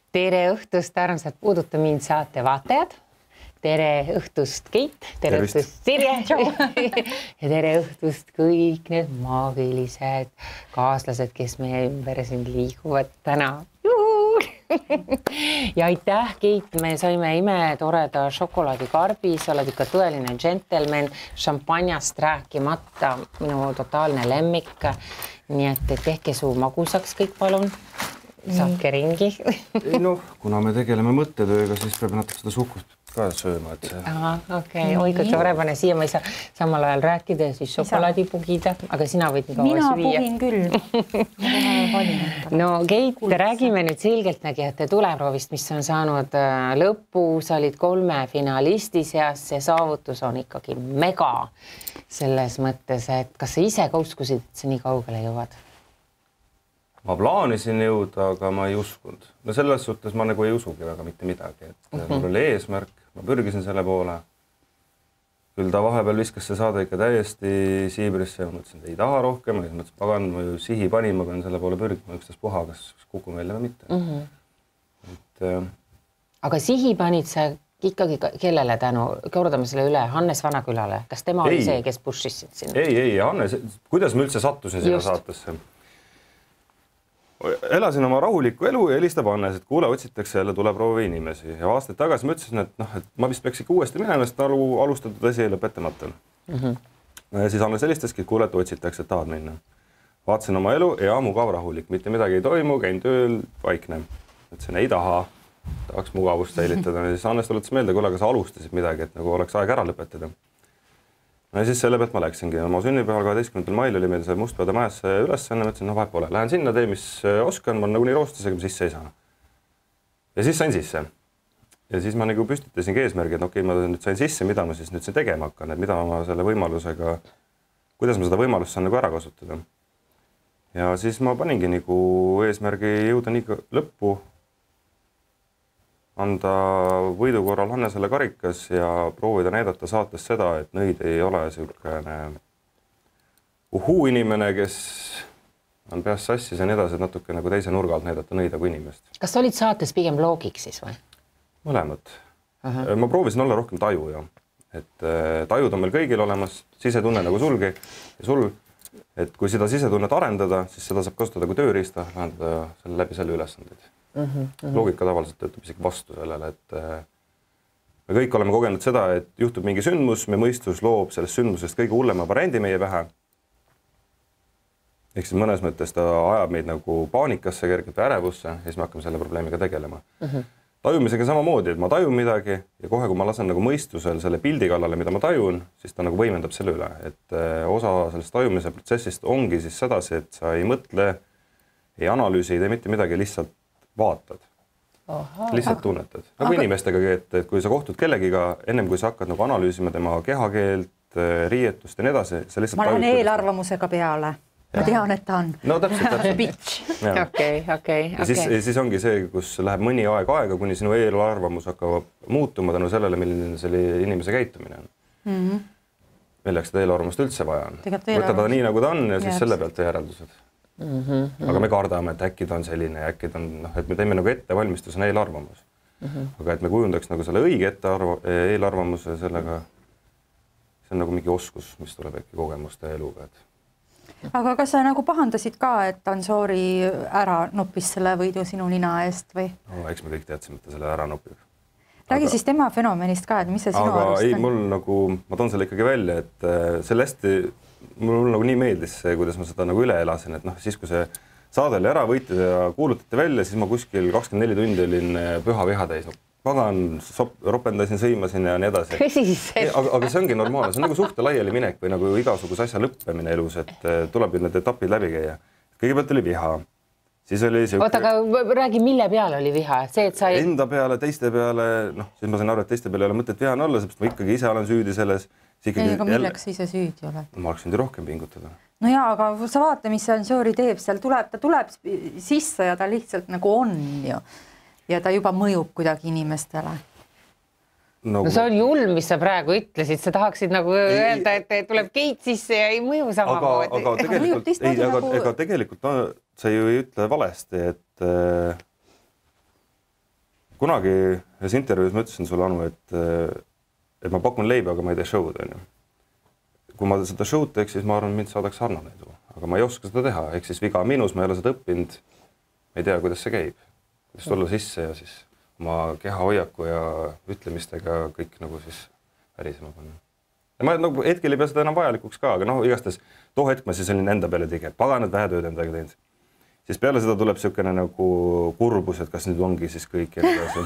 Tere õhtust, armsad Puuduta mind saate vaatajad. Tere õhtust, Keit. Tere õhtust, Sirje. Ja tere õhtust kõik need maagilised kaaslased, kes meie ümber siin liiguvad täna. Ja aitäh, Keit, me saime imetoreda šokolaadikarbi, sa oled ikka tõeline džentelmen, šampanjast rääkimata, minu totaalne lemmik. Nii et tehke suu magusaks kõik, palun. Saatke ringi. Noh, kuna me tegeleme mõttetööga, siis peab natuke seda suhkust ka sööma. Okei, oi, kui tore pane siia, ma ei saa samal ajal rääkida ja siis šokolaadi pugida, aga sina võid nii kaua süüa. Mina pugin küll. No Keit, räägime nüüd selgeltnägijate tuleproovist, mis on saanud lõppu, sa olid 3 finalisti seas, see saavutus on ikkagi mega selles mõttes, et kas sa ise ka uskusid, et sa nii kaugele jõuad? Ma plaanisin jõuda, aga ma ei uskunud. No selles suhtes ma nagu ei usugi väga mitte midagi. Mul oli eesmärk, ma pürgisin selle poole. Küll ta vahepeal viskas see saade ikka täiesti siibrisse ja mõtlesin, et ei taha rohkem. Ja mõtlesin, pagan, ma ju sihi panin, ma pean selle poole pürgima ükstas puha, kas kukun välja või mitte. Aga sihi panid sa ikkagi kellele tänu? Kordame selle üle, Hannes Vanakülale. Kas tema oli see, kes pushis sinna? Ei, Hannes, kuidas ma üldse sattusin sinna saatesse? Elasin oma rahulikku elu ja helistab Hannes, et kuule, otsitakse jälle tuleproovi inimesi. Ja aastaid tagasi ma ütlesin, et ma vist peaks ikka uuesti minema, sest alustatud asi ei lõpetamata. Ja siis Hannes helistaski, et kuule, et otsitakse, et tahad minna. Vaatasin oma elu ja mugav rahulik, mitte midagi ei toimu, käin tööl, vaikne. Ütlesin, ei taha, tahaks mugavust säilitada. Ja siis Hannes tuletas meelde, kuule, aga sa alustasid midagi, et nagu oleks aeg ära lõpetada. Ja siis selle pealt ma läksingi. Oma sünnipäeval 12. mail oli meil see Mustpeade majasse ülesanne. Mõtlesin, vahet pole. Lähen sinna, tee, mis oskan. Ma nagu nii roostusega sisse ei saa. Ja siis sain sisse. Ja siis ma nagu püstitasingi eesmärgi, et okei, ma nüüd sain sisse, mida ma siis nüüd tegema hakkan. Et mida ma selle võimalusega, kuidas ma seda võimalust saan nagu ära kasutada. Ja siis ma paningi nagu eesmärgi jõuda nii lõppu, anda võidu korral Hannesele karikas ja proovida näidata saates seda, et nõid ei ole selline inimene, kes on peas sassis ja nii edasi, et natuke nagu teise nurga alt näidata nõida kui inimest. Kas sa olid saates pigem loogiks siis või? Mõlemad. Ma proovisin olla rohkem taju ja et tajud on meil kõigil olemas, sisetunne nagu sulgi ja sul, et kui seda sisetunnet arendada, siis seda saab kasutada kui tööriista, lahendada selle läbi selle ülesandeid. Loogika tavaliselt töötab isegi vastu sellele, et me kõik oleme kogenud seda, et juhtub mingi sündmus, me mõistus loob sellest sündmusest kõige hullema variandi meie pähe. Ehk siis mõnes mõttes ta ajab meid nagu paanikasse, kergelt ärevusse ja siis me hakkame selle probleemiga tegelema. Tajumisega samamoodi, et ma tajun midagi ja kohe, kui ma lasen nagu mõistusel selle pildi kallale, mida ma tajun, siis ta nagu võimendab selle üle. Et osa sellest tajumise protsessist ongi siis sedasi, et sa ei mõtle, ei analüüsi, ei tee mitte midagi, lihtsalt vaatad. Lihtsalt tunnetad. Nagu inimestega, et kui sa kohtud kellegiga, ennem kui sa hakkad nagu analüüsima tema kehakeelt, riietust ja nii edasi, sa lihtsalt ma lähen eelarvamusega peale. Ma tean, et ta on. No täpselt. Okei. Ja siis ongi see, kus läheb mõni aega, kuni sinu eelarvamus hakkab muutuma tänu sellele, milline selle inimese käitumine on. Milleks seda eelarvamust üldse vaja on. Võtta ta nii, nagu ta on ja siis selle pealt järeldused. Aga me kardame, et äkki ta on selline ja äkki ta on, et me teeme nagu ettevalmistusena eelarvamus. Aga et me kujundaks nagu selle õige eelarvamuse sellega, see on nagu mingi oskus, mis tuleb äkki kogemuste eluga. Aga kas sa nagu pahandasid ka, et Ansoori ära noppis selle võidu sinu nina eest või? No, eks me kõik teadsime, et ta selle ära nopib. Räägi siis tema fenomenist ka, et mis see sinu arust on? Ei, mul nagu, ma toon selle ikkagi välja, et selle hästi mul nagu nii meeldis see, kuidas ma seda nagu üle elasin, et siis kui see saade oli ära võitud ja kuulutati välja, siis ma kuskil 24 tundi olin püha viha täis. Pagan, ropendasin, sõimasin ja nii edasi. Aga see ongi normaalne, see on nagu suhte laiali minek või nagu igasuguse asja lõppemine elus, et tuleb ju need etapid läbi käia. Kõigepealt oli viha. Siis oli see... Oota, aga räägi, mille peale oli viha? See, et sa... Enda peale, teiste peale, siis ma sain aru, et teiste peale ei ole mõtet vihane olla, sest ma ikkagi ise olen süüdi selles. Aga milleks ise süüdi oled? Ma oleks nüüd rohkem pingutada. No jaa, aga sa vaata, mis Ansoori teeb, seal ta tuleb sisse ja ta lihtsalt nagu on ju. Ja ta juba mõjub kuidagi inimestele. No see on julm, mis sa praegu ütlesid, sa tahaksid nagu öelda, et tuleb Keit sisse ja ei mõju samamoodi. Aga tegelikult sa ju ei ütle valesti, et kunagi ühes intervjuus ma ütlesin sulle, Anu, et ma pakun leiba, aga ma ei tee show'd, on ju. Kui ma seda show'd teeks, siis ma arvan, mind saadaks Arnold edu, aga ma ei oska seda teha, ehk siis viga minus, ma ei ole seda õppinud, ma ei tea, kuidas see käib, kuidas tulla sisse ja siis oma keha hoiaku ja ütlemistega kõik nagu siis värisema panna. Ja ma nagu hetkel ei pea seda enam vajalikuks ka, aga noh, igastes too hetk ma siis olin enda peale tege, paganad vähe tööd endaga teinud. Siis peale seda tuleb niisugune nagu kurbus, et kas nüüd ongi siis kõik ja nii edasi.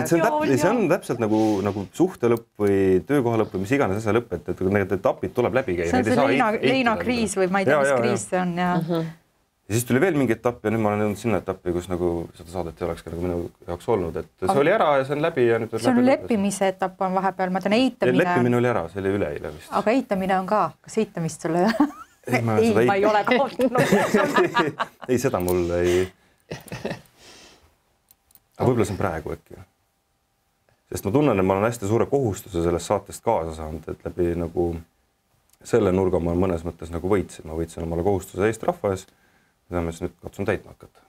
See on täpselt nagu suhte lõpp või töökoha lõpp või mis iganes asja lõpp, et need etapid tuleb läbi käia. See on see Leina kriis või ma ei tea, mis kriis see on. Ja siis tuli veel mingi etapp ja nüüd ma olen jõudnud sinna etappi, kus nagu seda saadet ei oleks nagu minu jaoks olnud, et see oli ära ja see on läbi ja nüüd see on leppimise etapp on vahepeal, ma tean eitamine. Leppimine oli ära, see oli üleeile vist. Aga eitamine on ka, kas eitamist sulle ei, ma ei ole kaotanud. Ei, seda mul ei. Aga võib-olla see on praegu äkki. Sest ma tunnen, et ma olen hästi suure kohustuse sellest saatest kaasa saanud, et läbi nagu selle nurga ma mõnes mõttes nagu võitsin. Ma võitsin omale kohustuse Eesti rahva ees, mida ma siis nüüd katsun täitma hakata.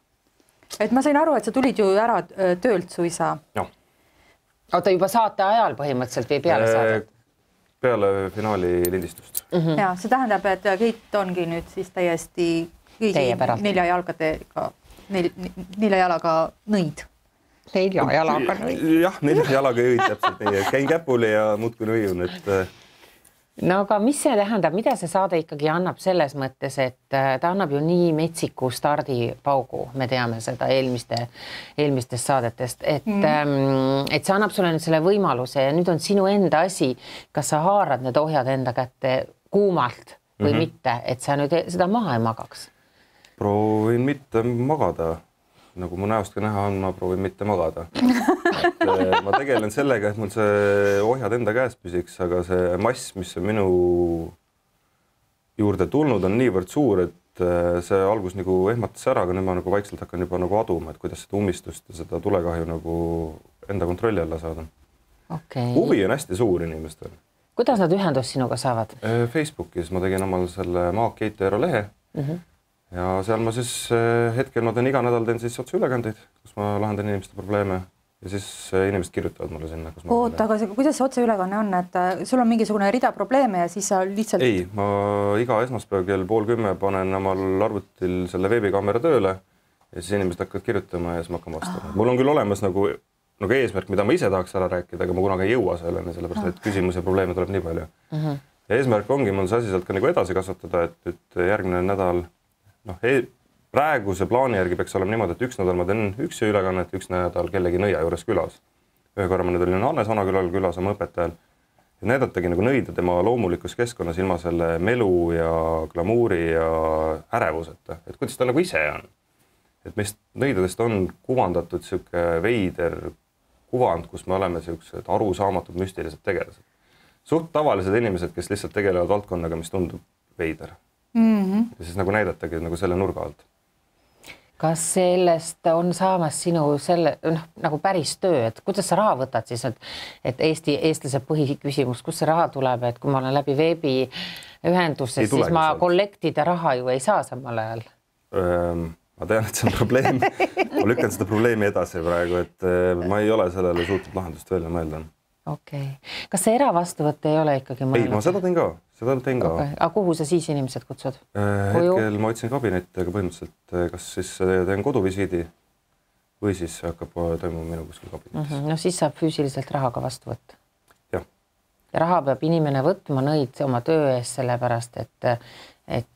Et ma sain aru, et sa tulid ju ära töölt suisa. Ja. Oota juba saate ajal põhimõtteliselt või peale saadet? Peale finaali lindistust. Ja, see tähendab, et Keit ongi nüüd siis täiesti nelja jalaga nõid. Nelja jalaga nõid. Jah, nelja jalaga nõid täpselt nii. Käin käpuli ja muudkui nõiun, et no aga mis see tähendab, mida see saade ikkagi annab selles mõttes, et ta annab ju nii metsiku stardipaugu, me teame seda eelmistest saadetest, et see annab sulle nüüd selle võimaluse ja nüüd on sinu enda asi, kas sa haarad need ohjad enda kätte kuumalt või mitte, et sa nüüd seda maha ei magaks? Proovin mitte magada. Nagu mu näost ka näha on, ma proovin mitte magada. Ma tegelen sellega, et mul see ohjad enda käes püsiks, aga see mass, mis on minu juurde tulnud, on niivõrd suur, et see algus nagu ehmatas ära, aga nüüd ma nagu vaikselt hakkan juba nagu aduma, et kuidas seda umistust ja seda tulekahju nagu enda kontrolli alla saada. Okay. Huvi on hästi suur inimestel. Kuidas nad ühendust sinuga saavad? Facebookis ma tegin omal selle Maak Keit Eero lehe. Ja seal ma siis hetkel ma teen iga nädal teen siis otseülekandeid, kus ma lahendan inimeste probleeme ja siis inimesed kirjutavad mulle sinna. Oota, aga kuidas see otseülekanne on, et sul on mingisugune rida probleeme ja siis sa lihtsalt... Ei, ma iga esmaspäev kell 9:30 panen omal arvutil selle veebikaamera tööle ja siis inimesed hakkavad kirjutama ja siis ma hakkan vastama. Mul on küll olemas nagu eesmärk, mida ma ise tahaks ära rääkida, aga ma kunagi ei jõua selleni, sellepärast et küsimus ja probleeme tuleb nii palju. Ja eesmärk ongi mul see asi sealt ka nagu edasi kasvatada, et järgmine nädal praeguse plaani järgi peaks olema niimoodi, et üks nädal ma teen üks ülekannet, üks nädal kellegi nõia juures külas. Ühe korra ma nüüd olin Hannes Vanakülal külas oma õpetajal ja näidatagi nagu nõida tema loomulikus keskkonnas ilma selle melu ja glamuuri ja ärevuseta, et kuidas ta nagu ise on. Et meist nõidadest on kuvandatud siuke veider kuvand, kus me oleme siuksed arusaamatud müstilised tegelased. Suht tavalised inimesed, kes lihtsalt tegelevad valdkonnaga, mis tundub veider. Ja siis nagu näidatagi nagu selle nurga alt. Kas sellest on saamas sinu nagu päris töö, et kuidas sa raha võtad siis, et eestlase põhiküsimus, kus see raha tuleb, et kui ma olen läbi veebi ühenduses, siis ma kollektida raha ju ei saa samal ajal? Ma tean, et see on probleem. Ma lükkan seda probleemi edasi praegu, et ma ei ole sellele suutnud lahendust välja mõelda. Okei. Kas see eravastuvõtt ei ole ikkagi mõelnud? Ei, ma seda teen ka. Aga kuhu sa siis inimesed kutsud? Hetkel ma otsin kabinetti, aga põhimõtteliselt kas siis teen koduvisiidi või siis hakkab toimuma minu kuskil kabinetis. No siis saab füüsiliselt rahaga vastu võtta. Jah. Ja raha peab inimene võtma nõid oma töö ees sellepärast, et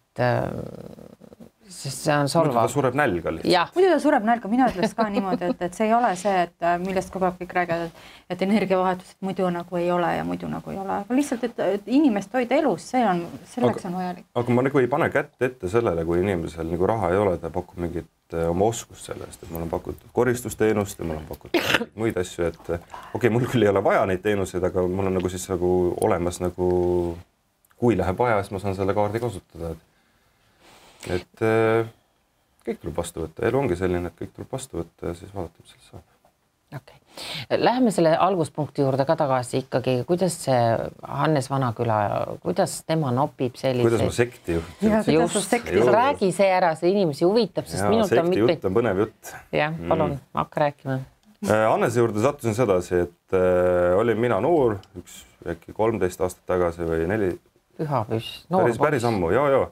sest see on solvav. Muidu ta sureb nälga lihtsalt. Muidu ta sureb nälga, mina ütleks ka niimoodi, et see ei ole see, et millest kogu aeg kõik räägivad, et energiavahetus, et muidu nagu ei ole ja muidu nagu ei ole. Aga lihtsalt, et inimest hoida elus, selleks on vajalik. Aga ma nagu ei pane kätt ette sellele, kui inimesel nagu raha ei ole, ta pakub mingit oma oskust sellest, et mul on pakutud koristusteenust ja mul on pakutud muid asju, et okei, mul küll ei ole vaja neid teenuseid, aga mul on nagu siis nagu olemas nagu, kui läheb vaja, siis ma saan selle kaardi kasutada. Et kõik tuleb vastu võtta. Elu ongi selline, et kõik tuleb vastu võtta ja siis vaadata, mis sellest saab. Okay. Läheme selle alguspunkti juurde ka tagasi ikkagi. Kuidas see Hannes Vanaküla, kuidas tema nopib selliseid? Kuidas ma sekti juht? Räägi see ära, see inimesi huvitab, sest minult on sekti jutt on põnev jutt. Jah, palun, hakka rääkima. Annese juurde sattusin sedasi, et olin mina noor, äkki 13 aastat tagasi või 4. Pühapüss. Päris ammu, joo.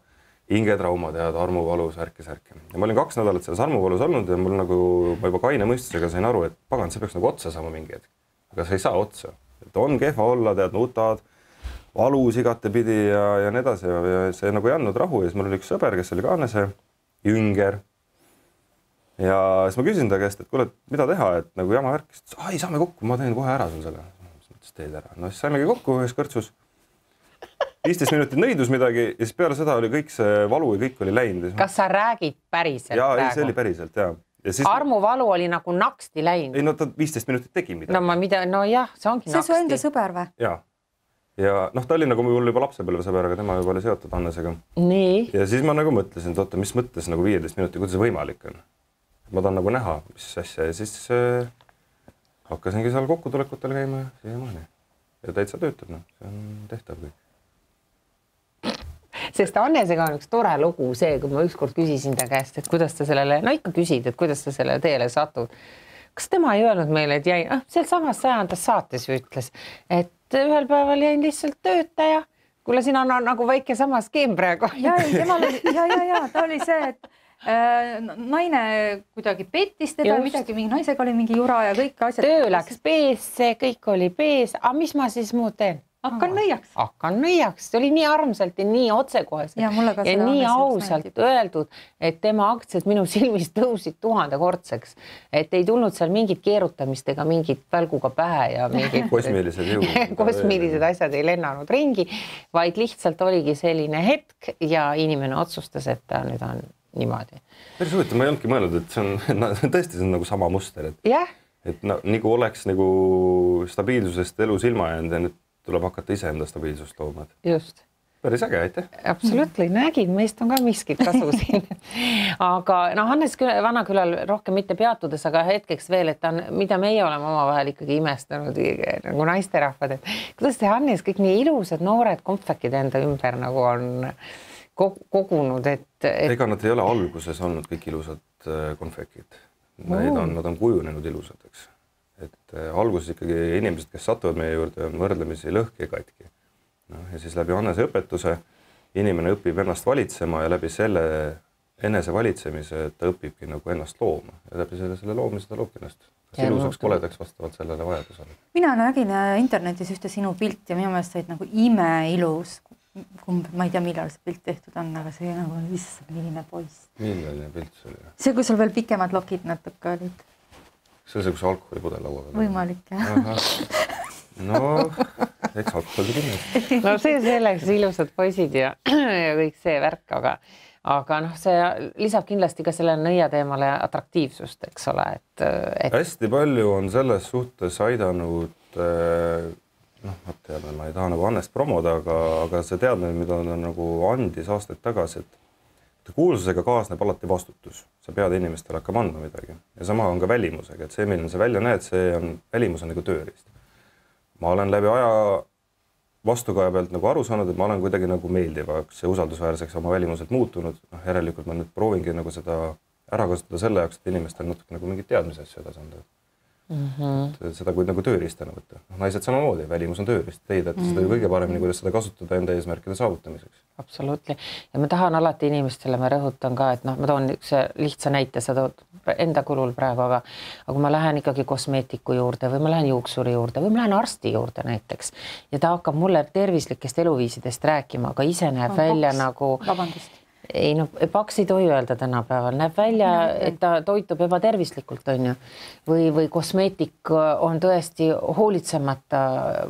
Hingetrauma tead, armuvalu, särke. Ja ma olin 2 nädalat selles armuvalus olnud ja mul nagu, ma juba kaine mõistusega sain aru, et pagan, see peaks nagu otsa saama mingi hetk. Aga see ei saa otsa. Et on kehva olla, tead, nutad, valus igatepidi ja nii edasi. Ja see nagu ei andnud rahu ja siis mul oli üks sõber, kes oli ka Annese, Jünger. Ja siis ma küsin ta käest, et kuule, mida teha, et nagu jama värk, siis ai, saame kokku, ma teen kohe ära sul selle. Siis teed ära. No siis saimegi kokku ühes kõrtsus. 15 minutit nõidus midagi ja siis peale seda oli kõik see valu ja kõik oli läinud. Kas sa räägid päriselt praegu? Jaa, see oli päriselt, jaa. Siis... Armuvalu oli nagu naksti läinud? Ei, no ta 15 minutit tegi midagi. No jah, see ongi naksti. See su enda sõber või? Jaa. Ja noh, ta oli nagu mul juba lapsepõlve sõber, aga tema juba oli seotud Annesega. Nii? Ja siis ma nagu mõtlesin, et oota, mis mõttes nagu 15 minutit, kuidas see võimalik on? Ma tahan nagu näha, mis asja ja siis hakkasingi seal kokkutulekutel käima ja siiamaani. Ja täitsa töötab, no. See on tehtav kõik. Sest Annesega on üks tore lugu see, kui ma ükskord küsisin ta käest, et kuidas ta sellele, no ikka küsid, et kuidas ta sellele teele satud. Kas tema ei öelnud meile, et jäi, seal samas 100. saates ütles, et ühel päeval jäin lihtsalt töötaja. Kuule, siin on nagu väike sama skeem praegu. Ja, ta oli see, et naine kuidagi pettis teda, midagi, mingi naisega oli mingi jura ja kõik asjad. Töö läks peesse, kõik oli pees. Aga mis ma siis muud teen? Hakkan nõiaks. See oli nii armsalt ja nii otsekoheselt ja nii ausalt öeldud, et tema aktsiad minu silmis tõusid 1000-kordseks. Et ei tulnud seal mingit keerutamist ega mingit välguga pähe ja mingid kosmiilised asjad ei lennanud ringi, vaid lihtsalt oligi selline hetk ja inimene otsustas, et ta nüüd on niimoodi. Päris huvitav, ma ei olnudki mõelnud, et see on tõesti see on nagu sama muster. Et nagu oleks nagu stabiilsusest elus ilma jäänud ja nüüd tuleb hakata ise enda stabiilsust looma. Just. Päris äge, aitäh. Absoluutselt, nägin, meist on ka miskit kasu siin. Aga Hannes Vanakülal rohkem mitte peatudes, aga hetkeks veel, et mida meie oleme omavahel ikkagi imestanud nagu naisterahvad, et kuidas see Hannes kõik nii ilusad noored kompfekid enda ümber nagu on kogunud, et... Ega nad ei ole alguses olnud kõik ilusad konfekid. Nad on kujunenud ilusad, eks. Et alguses ikkagi inimesed, kes satuvad meie juurde, on võrdlemisi lõhki ja katki. Ja siis läbi Annese õpetuse inimene õpib ennast valitsema ja läbi selle enese valitsemise ta õpibki nagu ennast looma. Ja läbi selle loomise ta loobki ennast. Kas ilusaks koledaks vastavalt sellele vajadusele? Mina nägin internetis ühte sinu pilt ja minu meelest said nagu imeilus. Ma ei tea, millal see pilt tehtud on, aga see nagu milline poiss. Milline pilt see oli? See, kui sul veel pikemad lokid natuke olid. See on see, kus alkoholipudel laua peal. Võimalik, jah. No, eks alkoholi kindlasti. No see selleks ilusad poisid ja kõik see värk, aga noh, see lisab kindlasti ka selle nõia teemale atraktiivsust, eks ole. Hästi palju on selles suhtes aidanud, ma ei taha nagu Annest promoda, aga see teadmine, mida ta nagu andis aastaid tagasi, et kuulsusega kaasneb alati vastutus. Sa pead inimestele hakkama andma midagi. Ja sama on ka välimusega, et see, milline sa välja näed, välimus on nagu tööriist. Ma olen läbi aja vastukaja pealt nagu aru saanud, et ma olen kuidagi nagu meeldivaks ja usaldusväärseks oma välimuselt muutunud. Järelikult ma nüüd proovingi nagu seda ära kasutada selle jaoks, et inimestel natuke nagu mingid teadmised edasi anda. Seda kui nagu tööriistana võtta. Naised samamoodi, välimus on tööriist. Teid, et seda kõige paremini, kuidas seda kasutada enda eesmärkide saavutamiseks. Absoluutli. Ja ma tahan alati inimestele, ma rõhutan ka, et ma toon üks lihtsa näite, sa tood enda kulul praegu, aga kui ma lähen ikkagi kosmeetiku juurde või ma lähen juuksuri juurde või ma lähen arsti juurde näiteks ja ta hakkab mulle tervislikest eluviisidest rääkima, aga ise näeb välja nagu... Vabandust. Ei, no paks ei tohi öelda tänapäeval. Näeb välja, et ta toitub ebatervislikult, on ju. Või kosmeetik on tõesti hoolitsemata,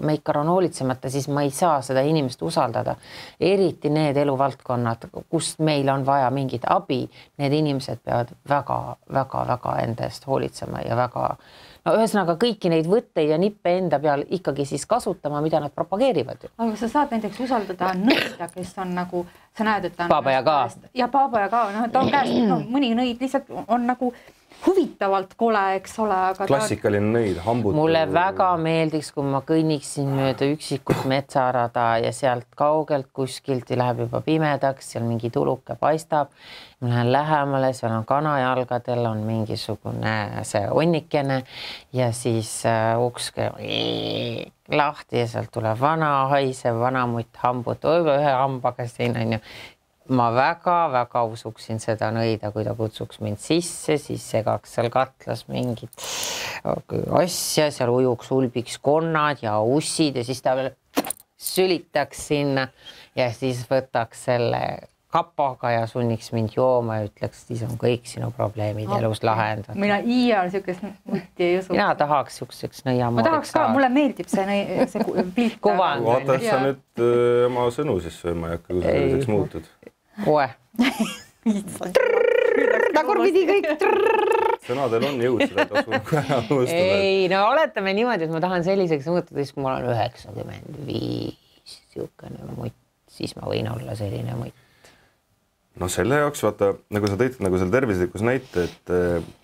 meikar on hoolitsemata, siis ma ei saa seda inimest usaldada. Eriti need eluvaldkonnad, kus meil on vaja mingit abi, need inimesed peavad väga enda eest hoolitsema ja väga... No ühesõnaga kõiki neid võtteid ja nippe enda peal ikkagi siis kasutama, mida nad propageerivad. Aga sa saad näiteks usaldada nõida, kes on nagu, sa näed, et ta on... Paaba ja ka. Ja paaba ja ka, ta on käest, mõni nõid lihtsalt on nagu huvitavalt kole, eks ole, aga klassikaline nõid, hambud. Mulle väga meeldiks, kui ma kõnniksin mööda üksikut metsarada ja sealt kaugelt kuskilt läheb juba pimedaks, seal mingi tuluke paistab. Ma lähen lähemale, seal on kanajalgadel, on mingisugune see onnikene ja siis ukske lahti ja sealt tuleb vana haisev vanamutt hambud, ühe hambaga siin on ju. Ma väga-väga usuksin seda nõida, kui ta kutsuks mind sisse, siis segaks seal katlas mingit asja, seal ujuks ulbiks konnad ja ussid ja siis ta veel sülitaks sinna ja siis võtaks selle kapaga ja sunniks mind jooma ja ütleks, siis on kõik sinu probleemid elus lahendatud. Mina iial niisugust mutti ei usu. Mina tahaks niisuguseks nõiamoodiks. Ma tahaks ka, mulle meeldib see pilt. Kuvand. Vaata, sa nüüd oma sõnu siis sööma ei hakka, kui sa selliseks muutud. Oe. Tagurpidi kõik. Sõnadel on jõud, seda ei tasu ära unustada. Ei, no oletame niimoodi, et ma tahan selliseks muutuda, siis kui mul on 95 siukene mutt, siis ma võin olla selline mutt. No selle jaoks, vaata, nagu sa tõid nagu selle tervislikus näite, et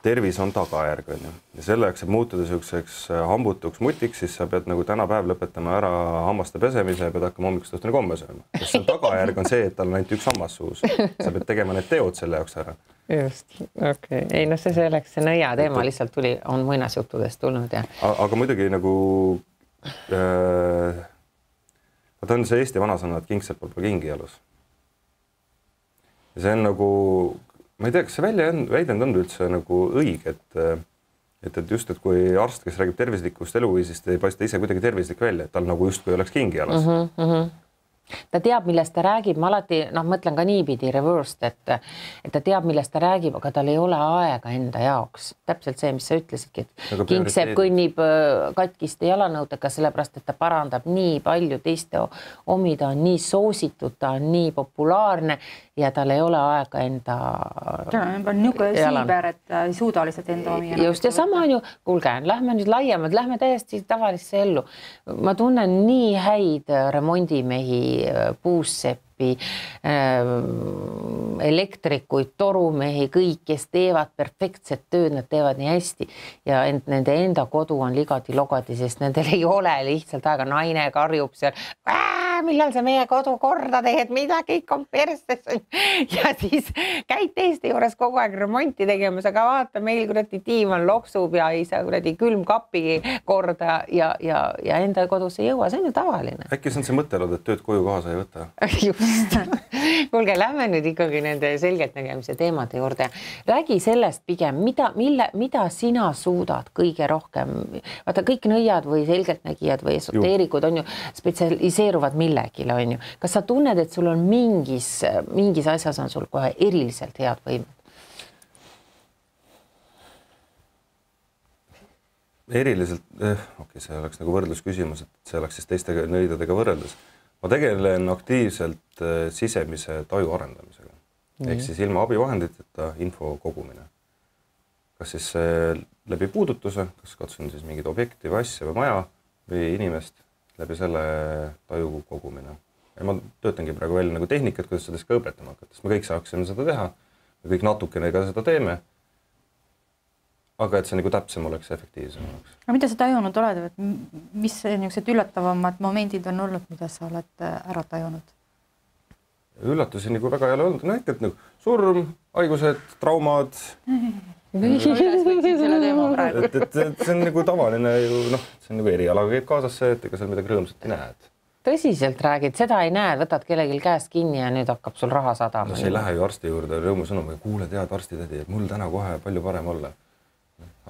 tervis on tagajärg, on ju. Ja selle jaoks, et muutuda selliseks hambutuks mutiks, siis sa pead nagu tänapäev lõpetama ära hammaste pesemise ja pead hakkama hommikust õhtuni komme sööma. Sest see tagajärg on see, et tal on ainult üks hammas suus. Sa pead tegema need teod selle jaoks ära. Just, okei. Ei, no see selleks, see nõia teema lihtsalt tuli, on muinasjuttudest tulnud ja. Aga muidugi nagu ta on see Eesti vanasõna, et kingsepal pole kingi jalus. Ja see on nagu, ma ei tea, kas see väidend on üldse nagu õige, et just, et kui arst, kes räägib tervislikust eluviisist, ei paista ise kuidagi tervislik välja, et tal nagu just kui oleks kingi jalas. Ta teab, millest ta räägib, ma alati mõtlen ka niipidi reversed, et ta teab, millest ta räägib, aga tal ei ole aega enda jaoks. Täpselt see, mis sa ütlesidki, et Kingsepp kõnnib katkiste jalanõudega, sellepärast, et ta parandab nii palju teiste omi, ta on nii soositud, ta on nii populaarne ja tal ei ole aega enda niisugune siiber, et ei suuda lihtsalt enda omi. Just ja sama on ju, kuulge, lähme nüüd laiemalt, lähme täiesti tavalisse ellu. Ma tunnen nii häid remondimehi, puusseppi, elektrikuid, torumehi, kõik, kes teevad perfektset tööd, nad teevad nii hästi ja nende enda kodu on ligadi-logadi, sest nendel ei ole lihtsalt aega, naine karjub seal, millal sa meie kodu korda teed, mida kõik on perstes ja siis käid teiste juures kogu aeg remonti tegemas, aga vaata, meil kuradi diivan loksub ja ei saa kuradi külmkapi korda ja enda kodus ei jõua, see on ju tavaline. Äkki see on see mõttelod, et tööd koju kaasa ei võta? Just. Kuulge, lähme nüüd ikkagi nende selgelt nägemise teemade juurde. Räägi sellest pigem, mida sina suudad kõige rohkem? Vaata, kõik nõiad või selgelt nägijad või esoteerikud on ju spetsialiseeruvad millegile, on ju. Kas sa tunned, et sul on mingis asjas on sul kohe eriliselt head võimed? Eriliselt, see oleks nagu võrdlusküsimus, et see oleks siis teiste nõidadega võrreldes. Ma tegelen aktiivselt sisemise taju arendamisega. Ehk siis ilma abivahenditeta info kogumine. Kas siis läbi puudutuse, kas katsun siis mingid objekti või asja või maja või inimest läbi selle taju kogumine. Ja ma töötangi praegu välja nagu tehnikat, kuidas seda ka õpetama hakata. Me kõik saaksime seda teha, me kõik natukene ka seda teeme, aga et see nagu täpsem oleks, efektiivsem oleks. Aga mida sa tajunud oled, et mis niisugused üllatavamad momendid on olnud, mida sa oled ära tajunud? Üllatusi nagu väga ei ole olnud. Näiteks nagu surm, haigused, traumad. Et see on nagu tavaline, see on nagu erialaga käib kaasas see, et ega seal midagi rõõmsat ei näed. Tõsiselt räägid, seda ei näe, võtad kellelgi käest kinni ja nüüd hakkab sul raha sadama. No see ei lähe ju arsti juurde rõõmusõnum, kuule tead arstitädi, et mul täna kohe palju parem olla.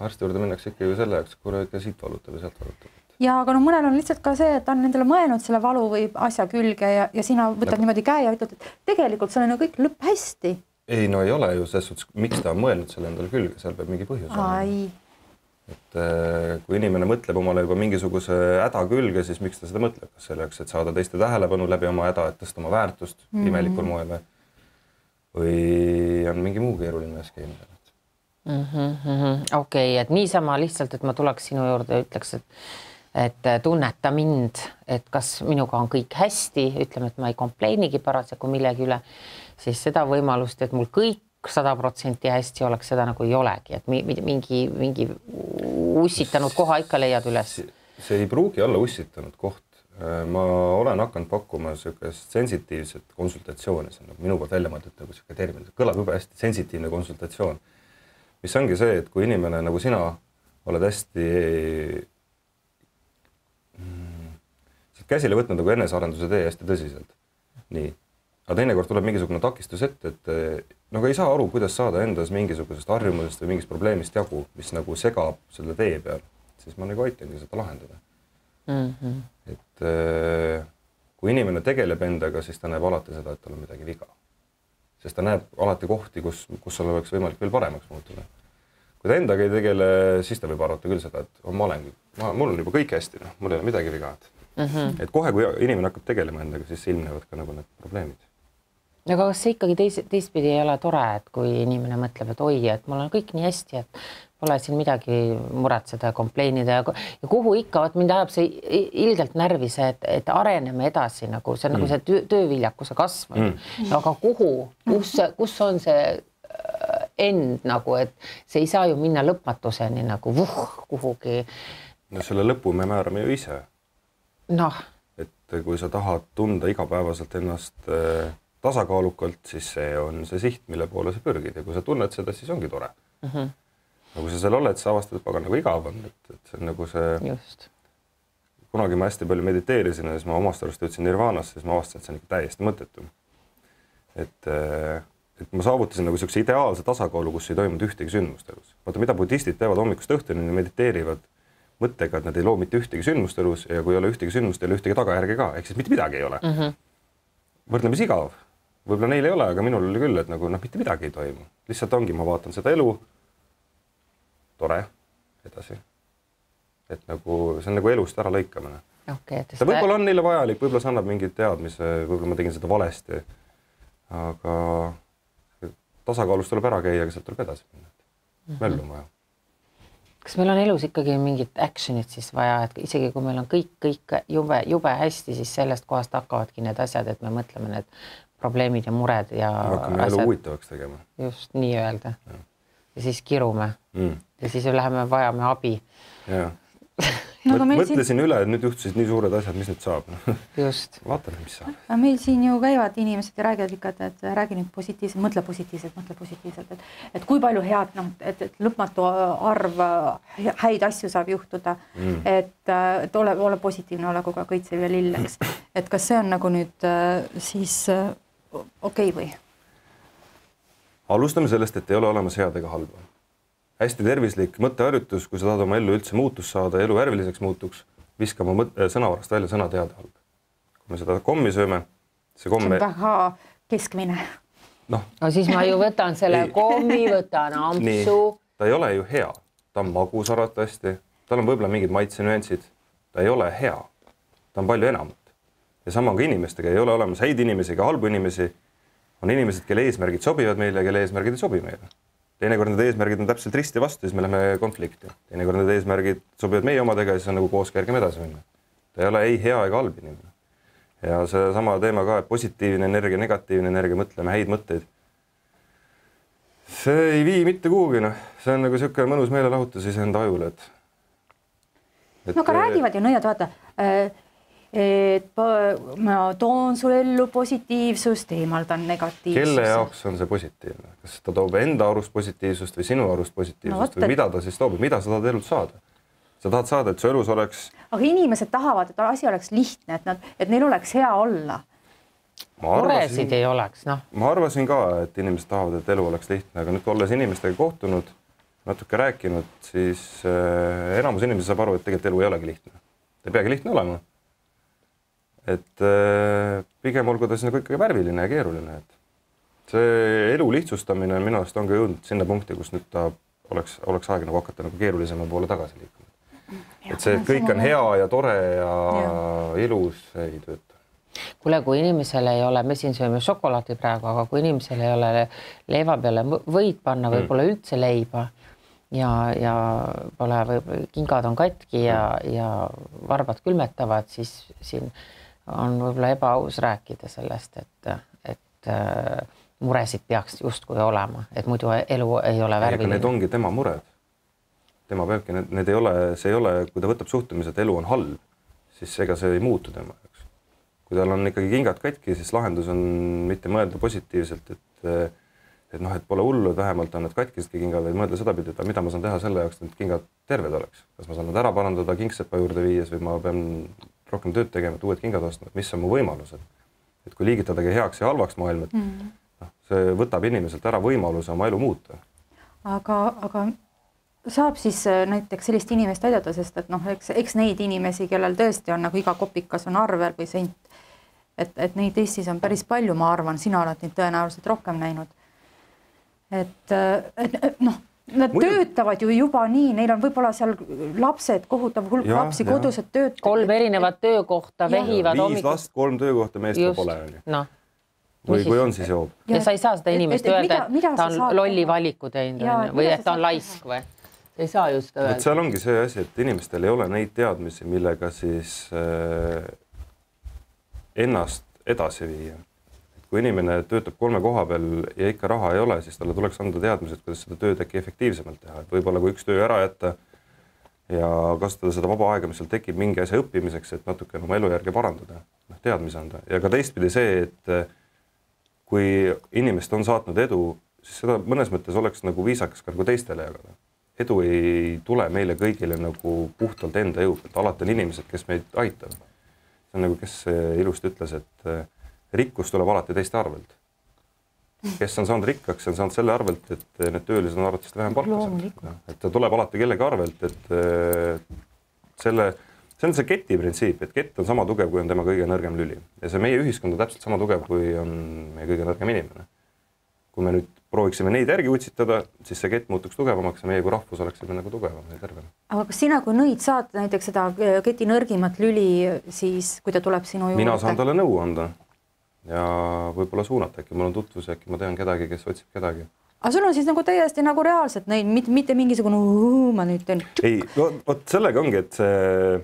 Arsti juurde minnakse ikka ju selle jaoks, kui ikka siit valutab ja sealt valutab. Ja aga mõnel on lihtsalt ka see, et on nendele mõelnud selle valu või asja külge ja sina võtad niimoodi käe ja ütled, et tegelikult see on kõik lõpp hästi. Ei, no ei ole ju selles suhtes, miks ta on mõelnud selle endale külge, seal peab mingi põhjus olema. Et kui inimene mõtleb omale juba mingisuguse häda külge, siis miks ta seda mõtleb? Kas selleks, et saada teiste tähelepanu läbi oma häda, et tõsta oma väärtust imelikul moel või on mingi muu keeruline skeem? Okei, et niisama lihtsalt, et ma tuleks sinu juurde ja ütleks, et tunneta mind, et kas minuga on kõik hästi, ütleme, et ma ei kompleinigi parasjagu millegi üle, siis seda võimalust, et mul kõik 100% hästi oleks, seda nagu ei olegi, et mingi ussitanud koha ikka leiad üles. See ei pruugi olla ussitanud koht. Ma olen hakanud pakkuma sellist sensitiivset konsultatsiooni, see on minu poolt välja mõeldud nagu selline termin, kõlab juba hästi, sensitiivne konsultatsioon, mis ongi see, et kui inimene nagu sina oled hästi käsile võtnud nagu enesearenduse tee hästi tõsiselt, nii, aga teinekord tuleb mingisugune takistus ette, et nagu ei saa aru, kuidas saada endas mingisugusest harjumusest või mingist probleemist jagu, mis nagu segab selle tee peal, siis ma nagu aitangi seda lahendada. Et kui inimene tegeleb endaga, siis ta näeb alati seda, et tal on midagi viga. Sest ta näeb alati kohti, kus seal oleks võimalik veel paremaks muutuda. Kui ta endaga ei tegele, siis ta võib arvata küll seda, et mul on juba kõik hästi, mul ei ole midagi viga. Et kohe, kui inimene hakkab tegelema endaga, siis ilmnevad ka nagu need probleemid. Aga kas see ikkagi teistpidi ei ole tore, et kui inimene mõtleb, et oi, et mul on kõik nii hästi, et pole siin midagi muretseda ja kompleinida ja kuhu ikka, mind ajab see ilgelt närvi see, et areneme edasi, nagu see on nagu see tööviljakuse kasv. Aga kus on see end nagu, et see ei saa ju minna lõpmatuseni nagu kuhugi. No selle lõpu me määrame ju ise. Et kui sa tahad tunda igapäevaselt ennast tasakaalukalt, siis see on see siht, mille poole sa pürgid ja kui sa tunned seda, siis ongi tore. Aga kui sa seal oled, sa avastad, et nagu igav on, et see on nagu see... Just. Kunagi ma hästi palju mediteerisin ja siis ma omast arust jõudsin nirvaanasse, siis ma avastasin, et see on ikka täiesti mõttetu. Et ma saavutasin nagu sellise ideaalse tasakaalu, kus ei toimunud ühtegi sündmust elus. Vaata, mida budistid teevad hommikust õhtuni, mediteerivad mõttega, et nad ei loo mitte ühtegi sündmust elus ja kui ei ole ühtegi sündmust, ei ole ühtegi tagajärge ka, ehk siis mitte midagi ei ole. Võrdlemis igav. Võib-olla neil ei ole, aga minul oli küll, et nagu mitte midagi ei toimu. Lihtsalt ongi, ma vaatan seda elu, tore, edasi. Et nagu, see on nagu elust ära lõikamine. Ta võib-olla on neile vajalik, võib-olla see annab mingid teadmise, võib-olla ma tegin seda valesti, aga tasakaalust tuleb ära käia, aga sealt tuleb edasi minna. Möllu on vaja. Kas meil on elus ikkagi mingit actionit siis vaja, et isegi kui meil on kõik jube hästi, siis sellest kohast hakkavadki need asjad, et me mõtleme need probleemid ja mured ja hakkame elu huvitavaks tegema. Just nii öelda. Ja siis kirume. Ja siis läheme vajame abi. Ja. Mõtlesin üle, et nüüd juhtusid nii suured asjad, mis nüüd saab. Just. Vaatame, mis saab. Meil siin ju käivad inimesed ja räägivad ikka, et räägi nüüd positiivselt, mõtle positiivselt, et kui palju head, et lõpmatu arv häid asju saab juhtuda, et ole positiivne, ole kogu kõitsev ja lilleks. Et kas see on nagu nüüd siis okei või? Alustame sellest, et ei ole olemas head ega halba. Hästi tervislik mõtteharjutus, kui sa tahad oma ellu üldse muutus saada, elu värviliseks muutuks, viskama sõnavarast välja sõna teada halb. Kui me seda kommi sööme, see komme... See on väga keskmine. No siis ma ju võtan selle kommi, võtan ampsu. Nii, ta ei ole ju hea. Ta on magus arvatavasti, tal on võib-olla mingid maitsenüansid. Ta ei ole hea. Ta on palju enamat. Ja sama on ka inimestega. Ei ole olemas häid inimesi ega halbu inimesi. On inimesed, kelle eesmärgid sobivad meile ja kelle eesmärgid ei sobi meile. Teinekord need eesmärgid on täpselt risti vastu, siis me läheme konflikti. Teinekord need eesmärgid sobivad meie omadega ja siis on nagu koos kergem edasi minna. Ta ei ole ei hea ega halb inimene. Ja see sama teema ka, et positiivne energia, negatiivne energia, mõtleme häid mõtteid. See ei vii mitte kuhugi, See on nagu selline mõnus meelelahutus enda ajule. No ka räägivad ju nõiad, vaata, et ma toon sulle ellu positiivsust, eemaldan negatiivsust. Kelle jaoks on see positiivne? Kas ta toob enda arust positiivsust või sinu arust positiivsust või mida ta siis toob? Mida sa tahad elult saada? Sa tahad saada, et su elus oleks... Aga inimesed tahavad, et asi oleks lihtne, et neil oleks hea olla. Muresid ei oleks, Ma arvasin ka, et inimesed tahavad, et elu oleks lihtne, aga nüüd olles inimestega kohtunud, natuke rääkinud, siis enamus inimesi saab aru, et tegelikult elu ei olegi lihtne. Ta ei peagi lihtne olema. Et pigem olgu ta nagu ikkagi värviline ja keeruline. Et see elu lihtsustamine minu arust on ka jõudnud sinna punkti, kus nüüd ta oleks aeg nagu hakata nagu keerulisema poole tagasi liikuma. Et see, et kõik on hea ja tore ja ilus, ei tööta. Kuule, kui inimesel ei ole, me siin sööme šokolaadi praegu, aga kui inimesel ei ole leiva peale võid panna või pole üldse leiba ja pole kingad on katki ja varbad külmetavad, siis siin on võib-olla ebaaus rääkida sellest, et muresid peaks justkui olema, et muidu elu ei ole värviline. Need ongi tema mured. Tema peabki, need ei ole, see ei ole, kui ta võtab suhtumise, et elu on halb, siis ega see ei muutu tema jaoks. Kui tal on ikkagi kingad katki, siis lahendus on mitte mõelda positiivselt, et pole hullu, et vähemalt on need katkisedki kingad, vaid mõelda seda pidi, et mida ma saan teha selle jaoks, et kingad terved oleks. Kas ma saan nad ära parandada kingsepa juurde viies või ma pean rohkem tööd tegema, et uued kingad ostma, mis on mu võimalused. Et kui liigitadagi heaks ja halvaks maailm, et see võtab inimeselt ära võimaluse oma elu muuta. Aga saab siis näiteks sellist inimest aidata, sest et eks neid inimesi, kellel tõesti on nagu iga kopikas on arvel või sent, et neid Eestis on päris palju, ma arvan, sina oled neid tõenäoliselt rohkem näinud. Nad töötavad ju juba nii, neil on võib-olla seal lapsed, kohutav hulk lapsi, kodused töötavad. 3 erinevat töökohta vehivad 5 last, 3 töökohta, meest ka pole. Või kui on, siis joob. Ja sa ei saa seda inimest öelda, et ta on lolli valiku teinud või et ta on laisk või? Ei saa just öelda. Seal ongi see asi, et inimestel ei ole neid teadmisi, millega siis ennast edasi viia. Kui inimene töötab 3 koha peal ja ikka raha ei ole, siis talle tuleks anda teadmised, kuidas seda tööd äkki efektiivsemalt teha. Et võib-olla kui üks töö ära jätta ja kasutada seda vaba aega, mis seal tekib mingi asja õppimiseks, et natuke oma elujärge parandada, teadmise anda. Ja ka teistpidi see, et kui inimest on saatnud edu, siis seda mõnes mõttes oleks nagu viisakas ka nagu teistele jagada. Edu ei tule meile kõigile nagu puhtalt enda jõu pealt. Alati on inimesed, kes meid aitab. See on nagu, kes ilusti ütles, et rikkus tuleb alati teiste arvelt. Kes on saanud rikkaks, on saanud selle arvelt, et need töölised on arvatavasti vähem palka. Et ta tuleb alati kellegi arvelt, et see on see keti printsiip, et kett on sama tugev, kui on tema kõige nõrgem lüli. Ja see meie ühiskond on täpselt sama tugev, kui on meie kõige nõrgem inimene. Kui me nüüd prooviksime neid järgi utsitada, siis see kett muutuks tugevamaks ja meie kui rahvus oleksime nagu tugevam ja tervem. Aga kas sina, kui nõid saad näiteks seda keti nõrgimat lüli, siis kui ta tuleb sinu juurde? Mina saan talle nõu anda ja võib-olla suunata, äkki mul on tutvus, äkki ma tean kedagi, kes otsib kedagi. Aga sul on siis nagu täiesti nagu reaalselt neid, mitte mingisugune ma nüüd teen. Ei, vot sellega ongi, et see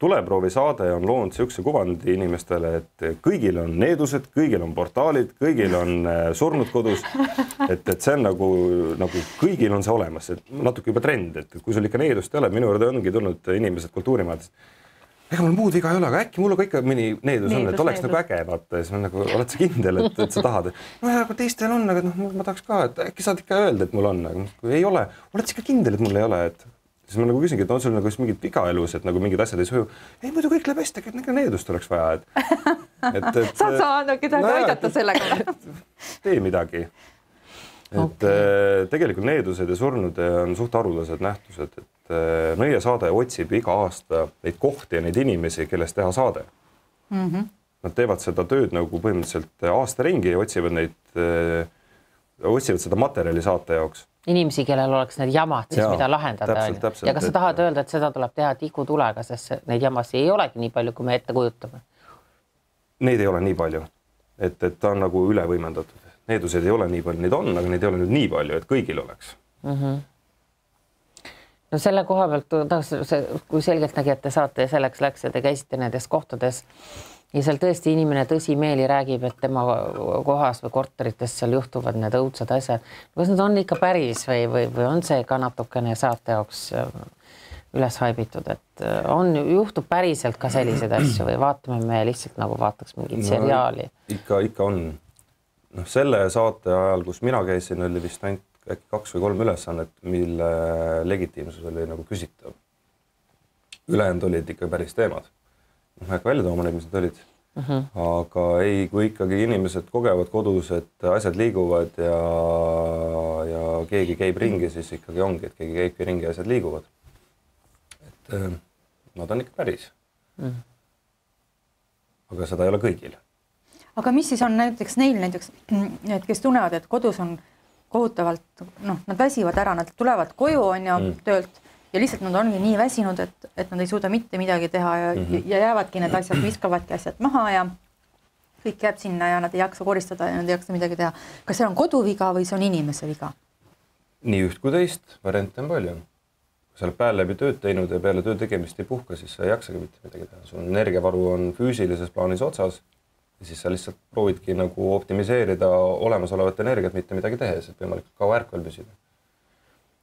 tuleproovi saade on loonud siukse kuvandi inimestele, et kõigil on needused, kõigil on portaalid, kõigil on surnud kodus, et see on nagu kõigil on see olemas, et natuke juba trend, et kui sul ikka needust ei ole, minu juurde ongi tulnud inimesed kultuurimaadest. Ega mul muud viga ei ole, aga äkki mul ka ikka mõni needus on, et oleks nagu äge, vaata, ja siis nagu, oled sa kindel, et sa tahad. No ja, kui teistel on, aga ma tahaks ka, et äkki saad ikka öelda, et mul on, aga kui ei ole, oled sa ikka kindel, et mul ei ole, et siis ma nagu küsingi, et on sul nagu mingid viga elus, et nagu mingid asjad ei suju. Ei, muidu kõik läheb hästi, et needust oleks vaja. Saad sa kedagi aidata sellega? Tee midagi. Et tegelikult needused ja surnud on suht haruldased nähtused, et Nõie saade otsib iga aasta neid kohti ja neid inimesi, kellest teha saade. Nad teevad seda tööd nagu põhimõtteliselt aasta ringi ja otsivad seda materjali saate jaoks. Inimesi, kellel oleks need jamad, siis mida lahendada. Täpselt, ja kas sa tahad öelda, et seda tuleb teha tikutulega, sest neid jamasi ei olegi nii palju, kui me ette kujutame? Neid ei ole nii palju, et ta on nagu üle võimendatud. Needused ei ole nii palju, neid on, aga neid ei ole nüüd nii palju, et kõigil oleks. No selle koha pealt, kui selgelt nägi, et te saate ja selleks läks ja te käisite nendes kohtades ja seal tõesti inimene tõsimeeli räägib, et tema kohas või korterites seal juhtuvad need õudsad asjad. Kas need on ikka päris või on see ka natukene saate jaoks üles haibitud, et juhtub päriselt ka selliseid asju või vaatame me lihtsalt nagu vaataks mingit seriaali? Ikka on. Selle saate ajal, kus mina käisin, oli vist ainult äkki 2 või 3 ülesannet, mille legitiimsus oli nagu küsitav. Ülejäänud olid ikka päris teemad. Ma äkki välja tooma neid, mis need olid. Aga ei, kui ikkagi inimesed kogevad kodus, et asjad liiguvad ja keegi käib ringi, siis ikkagi ongi, et keegi käibki ringi ja asjad liiguvad. Et nad on ikka päris. Aga seda ei ole kõigil. Aga mis siis on näiteks neil, kes tunnevad, et kodus on kohutavalt, nad väsivad ära, nad tulevad koju töölt ja lihtsalt nad ongi nii väsinud, et nad ei suuda mitte midagi teha ja jäävadki need asjad, viskavadki asjad maha ja kõik jääb sinna ja nad ei jaksa koristada ja nad ei jaksa midagi teha. Kas see on koduviga või see on inimese viga? Nii üht kui teist, variante on palju. Kui sa oled päev läbi tööd teinud ja peale töö tegemist ei puhka, siis sa ei jaksagi mitte midagi teha. Sul energiavaru on füüsilises plaanis otsas ja siis sa lihtsalt proovidki nagu optimiseerida olemasolevat energiat, mitte midagi tehes, et võimalikult kaua ärkvel püsida.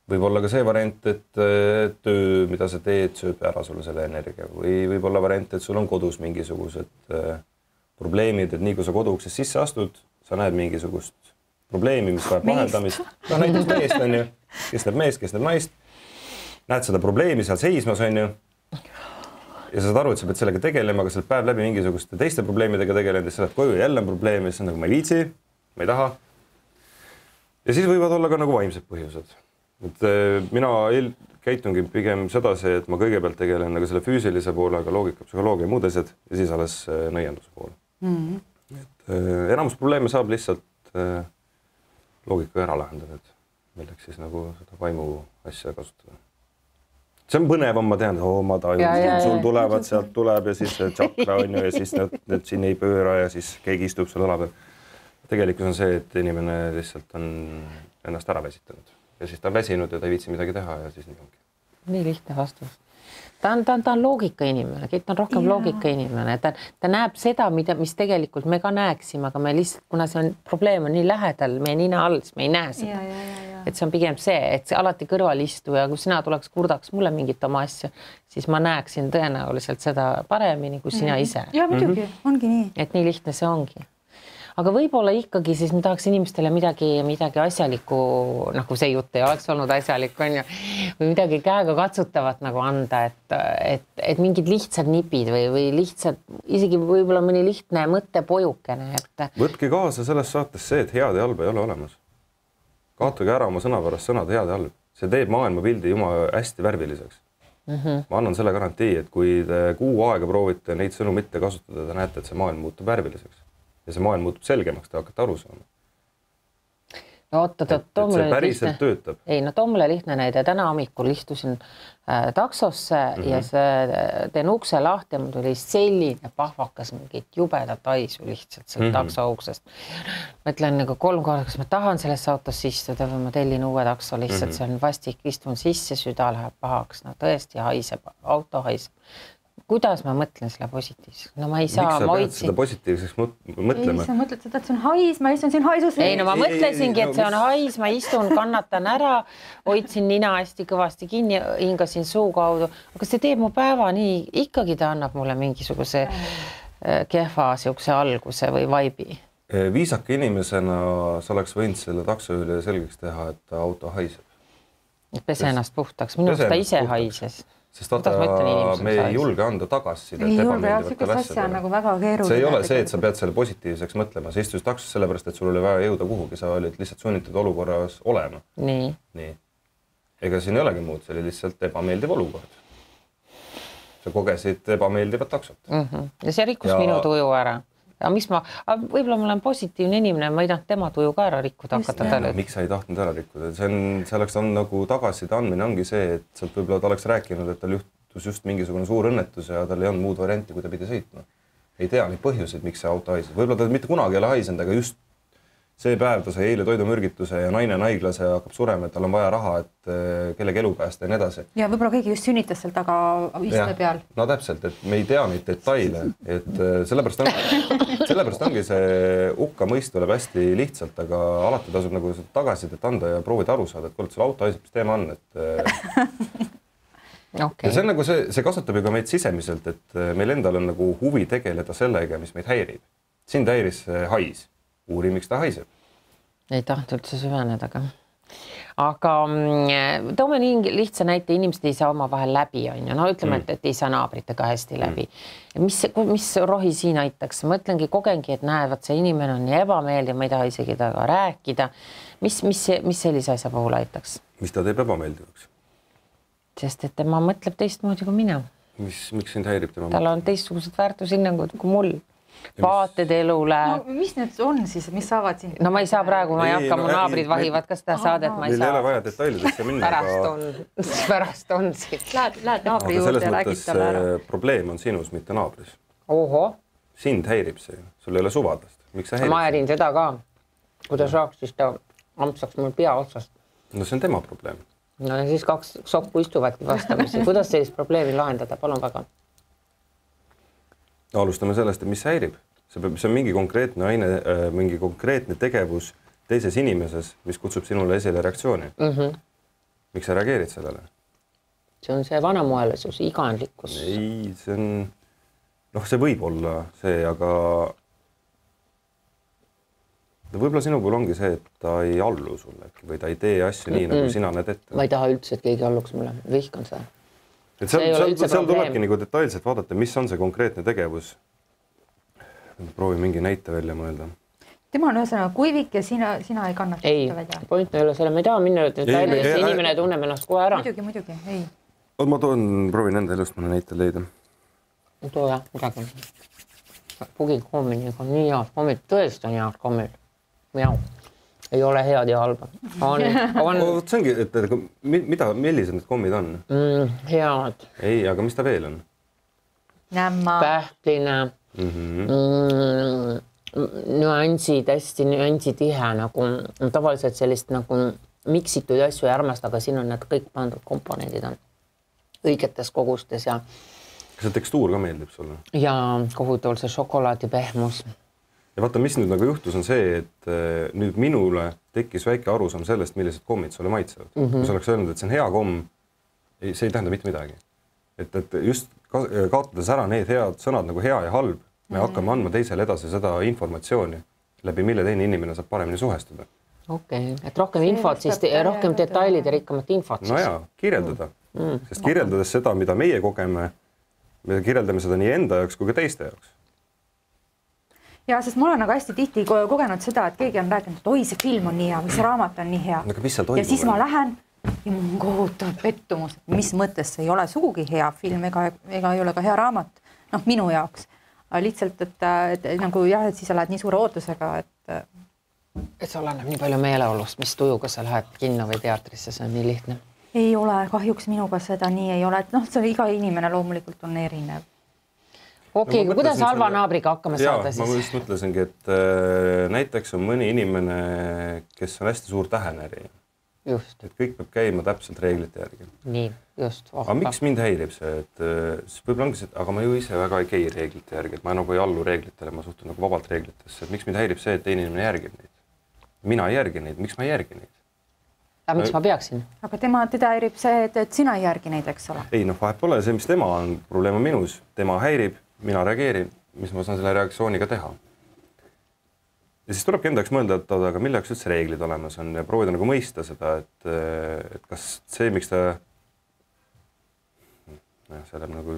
Võib olla ka see variant, et töö, mida sa teed, sööb ära sulle selle energia või võib olla variant, et sul on kodus mingisugused probleemid, et nii kui sa koduuksest sisse astud, sa näed mingisugust probleemi, mis vajab lahendamist. No näiteks meest on ju, kes näeb meest, kes näeb naist. Näed seda probleemi seal seismas on ju. Ja sa saad aru, et sa pead sellega tegelema, aga sa oled päev läbi mingisuguste teiste probleemidega tegelenud ja sa lähed koju ja jälle on probleem ja siis on nagu ma ei viitsi, ma ei taha. Ja siis võivad olla ka nagu vaimsed põhjused. Et mina käitungi pigem sedasi, et ma kõigepealt tegelen nagu selle füüsilise poolega, loogika, psühholoogia ja muud asjad ja siis alles nõienduse poole. Et enamus probleeme saab lihtsalt loogika ära lahendada, et milleks siis nagu seda vaimu asja kasutada. See on põnevam, ma tean, ma tajun, sul tulevad, sealt tuleb ja siis tšakra on ju ja siis need siin ei pööra ja siis keegi istub seal õla peal. Tegelikult on see, et inimene lihtsalt on ennast ära väsitanud ja siis ta on väsinud ja ta ei viitsi midagi teha ja siis nii ongi. Nii lihtne vastus. Ta on loogika inimene, ta on rohkem loogika inimene. Ta näeb seda, mis tegelikult me ka näeksime, aga me lihtsalt, kuna see on probleem on nii lähedal, meie nina all, siis me ei näe seda. Et see on pigem see, et see alati kõrval istu ja kui sina tuleks kurdaks mulle mingit oma asja, siis ma näeksin tõenäoliselt seda paremini kui sina ise. Ja muidugi, ongi nii. Et nii lihtne see ongi. Aga võib-olla ikkagi siis me tahaks inimestele midagi asjalikku, nagu see jutt ei oleks olnud asjalik, on ju, või midagi käega katsutavat nagu anda, et mingid lihtsad nipid või lihtsad, isegi võib-olla mõni lihtne mõttepojukene. Võtke kaasa selles saates see, et head ja halba ei ole olemas. Kaotage ära oma sõnapärast sõnad head ja halb. See teeb maailmapildi jumala hästi värviliseks. Ma annan selle garantii, et kui te kuu aega proovite neid sõnu mitte kasutada, te näete, et see maailm muutub värviliseks. Ja see maailm muutub selgemaks, te hakkate aru saama. No see päriselt töötab. Ei, no too mulle lihtne näide. Täna hommikul istusin taksosse ja teen ukse lahti ja mul tuli selline pahvakas mingit jubedat haisu lihtsalt seal takso uksest. Ma ütlen nagu 3 korda, kas ma tahan sellesse autosse istuda või ma tellin uue takso lihtsalt, see on vastik, istun sisse, süda läheb pahaks. No tõesti haiseb, auto haiseb. Kuidas ma mõtlen selle positiivseks? No ma ei saa... Miks sa pead seda positiivseks mõtlema? Ei, sa mõtled seda, et see on hais, ma istun siin haisus. Ei, no ma mõtlesingi, et see on hais, ma istun, kannatan ära, hoidsin nina hästi kõvasti kinni, hingasin suu kaudu. Aga see teeb mu päeva nii, ikkagi ta annab mulle mingisuguse kehva siukse alguse või vaibi. Viisaka inimesena sa oleks võinud selle taksojuhile selgeks teha, et auto haiseb. Pese ennast puhtaks, minu ta ise haises. Sest vaata, me ei julge anda tagasisidet ebameeldivatele asjadele. Nagu väga keeruline. See ei ole see, et sa pead selle positiivseks mõtlema. Sa istusid taksos sellepärast, et sul oli vaja jõuda kuhugi. Sa olid lihtsalt sunnitud olukorras olema. Nii. Ega siin ei olegi muud, see oli lihtsalt ebameeldiv olukord. Sa kogesid ebameeldivat taksot. Ja see rikkus minu tuju ära. Ja mis võib-olla ma olen positiivne inimene, ma ei tahtnud tema tuju ka ära rikkuda hakata talle. Miks sa ei tahtnud ära rikkuda? See oleks nagu tagaside andmine ongi see, et sealt võib-olla ta oleks rääkinud, et tal juhtus just mingisugune suur õnnetus ja tal ei olnud muud varianti, kui ta pidi sõitma. Ei tea neid põhjuseid, miks see auto haises. Võib-olla ta mitte kunagi ei ole haisend, aga just see päev ta sai eile toidumürgituse ja naine on haiglas ja hakkab surema, et tal on vaja raha, et kellegi elu päästa ja nii edasi. Ja võib-olla keegi just sünnitas seal taga istme peal. No täpselt, et me ei tea neid detaile, et sellepärast ongi see hukka mõist tuleb hästi lihtsalt, aga alati tasub nagu tagasidet anda ja proovida aru saada, et kuule, sul auto haiseb, mis teema on, et ja see on nagu see kasutab ju ka meid sisemiselt, et meil endal on nagu huvi tegeleda sellega, mis meid häirib. Sind häiris hais. Uuri, miks ta haiseb? Ei tahtnud üldse süveneda, aga toome nii lihtsa näite, inimesed ei saa oma vahel läbi, on ju. No ütleme, et ei saa naabritega hästi läbi. Mis rohi siin aitaks? Mõtlengi, kogengi, et näevad, see inimene on nii ebameeldiv, ma ei taha isegi taga rääkida. Mis sellise asja puhul aitaks? Mis ta teeb ebameeldivaks? Sest et tema mõtleb teistmoodi kui mina. Miks sind häirib tema? Tal on teistsugused väärtushinnangud kui mul. Vaated elule. No, mis need on siis, mis saavad siin? No ma ei saa praegu, ma ei hakka, mu naabrid vahivad ka seda saadet, ma ei saa. Meil ei ole vaja detailidesse minna. Pärast on siin. Lähed naabri juurde ja räägid talle ära. Probleem on sinus, mitte naabris. Oho. Sind häirib see. Sul ei ole suvadest. Miks sa häirib? Ma häirin seda ka. Kui ta saaks, siis ta ampsaks mul pea otsast. No see on tema probleem. No ja siis 2 sokku istuvadki vastamisi. Kuidas sellist probleemi lahendada? Palun väga. Alustame sellest, et mis häirib. see on mingi konkreetne aine, mingi konkreetne tegevus teises inimeses, mis kutsub sinule esile reaktsiooni. Miks sa reageerid sellele? See on see vanamoelisus, iganlikkus. Ei, see on, see võib olla see, aga võib-olla sinu puhul ongi see, et ta ei allu sulle või ta ei tee asju nii, nagu sina näed ette. Ma ei taha üldse, et keegi alluks mulle. Vihkan seda. Et seal tulebki nagu detailselt vaadata, mis on see konkreetne tegevus. Proovi mingi näite välja mõelda. Tema on ühesõnaga kuivik ja sina ei kannata ei, välja. Point ei ole selle, ma ei taha minna detailidesse, inimene tunneb ennast kohe ära. Muidugi, ei. Ma proovin enda elust mõne näite leida. Too jah, midagi. Pugikoominiga on nii head kommid, tõesti on head kommid. Miau. Ei ole head ja halba. See ongi, et millised need kommid on? Head. Ei, aga mis ta veel on? Nämma. Pähkline. Nüansid, hästi nüansitihe, nagu tavaliselt sellist nagu miksitud asju ei armasta, aga siin on need kõik pandud komponendid on õigetes kogustes ja see tekstuur ka meeldib sulle? Ja kohutavalt see šokolaadi pehmus. Ja vaata, mis nüüd nagu juhtus on see, et nüüd minule tekkis väike arusaam sellest, millised kommid sulle maitsevad. Kui sa oleks öelnud, et see on hea komm, see ei tähenda mitte midagi. Et just kaotades ära need head sõnad nagu hea ja halb, me hakkame andma teisele edasi seda informatsiooni, läbi mille teine inimene saab paremini suhestuda. Okei, et rohkem infot, siis rohkem detailid ja rikkamat infot. No jaa, kirjeldada. Sest kirjeldades seda, mida meie kogeme, me kirjeldame seda nii enda jaoks kui ka teiste jaoks. Ja, sest mul on nagu hästi tihti kogenud seda, et keegi on rääkinud, et oi, see film on nii hea või see raamat on nii hea. Ja siis ma lähen ja mul on kohutav pettumus, et mis mõttes see ei ole sugugi hea film ega ei ole ka hea raamat. Minu jaoks. Lihtsalt, et nagu jah, et siis sa lähed nii suure ootusega, et sa oleneb nii palju meeleolust, mis tujuga sa lähed kinno või teatrisse, see on nii lihtne. Ei ole, kahjuks minuga seda nii ei ole, et see iga inimene loomulikult on erinev. Okei, kuidas halva naabriga hakkama saada siis? Ma just mõtlesingi, et näiteks on mõni inimene, kes on hästi suur tähenäri. Just. Et kõik peab käima täpselt reeglite järgi. Nii, just. Aga miks mind häirib see? Et võib-olla ongi see, aga ma ju ise väga ei käi reeglite järgi. Et ma nagu ei allu reeglitele, ma suhtun nagu vabalt reeglitesse. Et miks mind häirib see, et teine inimene järgib neid? Mina ei järgi neid. Miks ma ei järgi neid? Aga miks ma peaksin? Aga teda häirib see, et sina ei järgi neid, eks ole? Ei, vahet pole see, mis tema on. Probleem on minus. Tema häirib. Mina reageerin, mis ma saan selle reaktsiooniga teha. Ja siis tulebki endaks mõelda, et aga mille jaoks üldse reeglid olemas on ja proovida nagu mõista seda, et kas see, miks ta see läheb nagu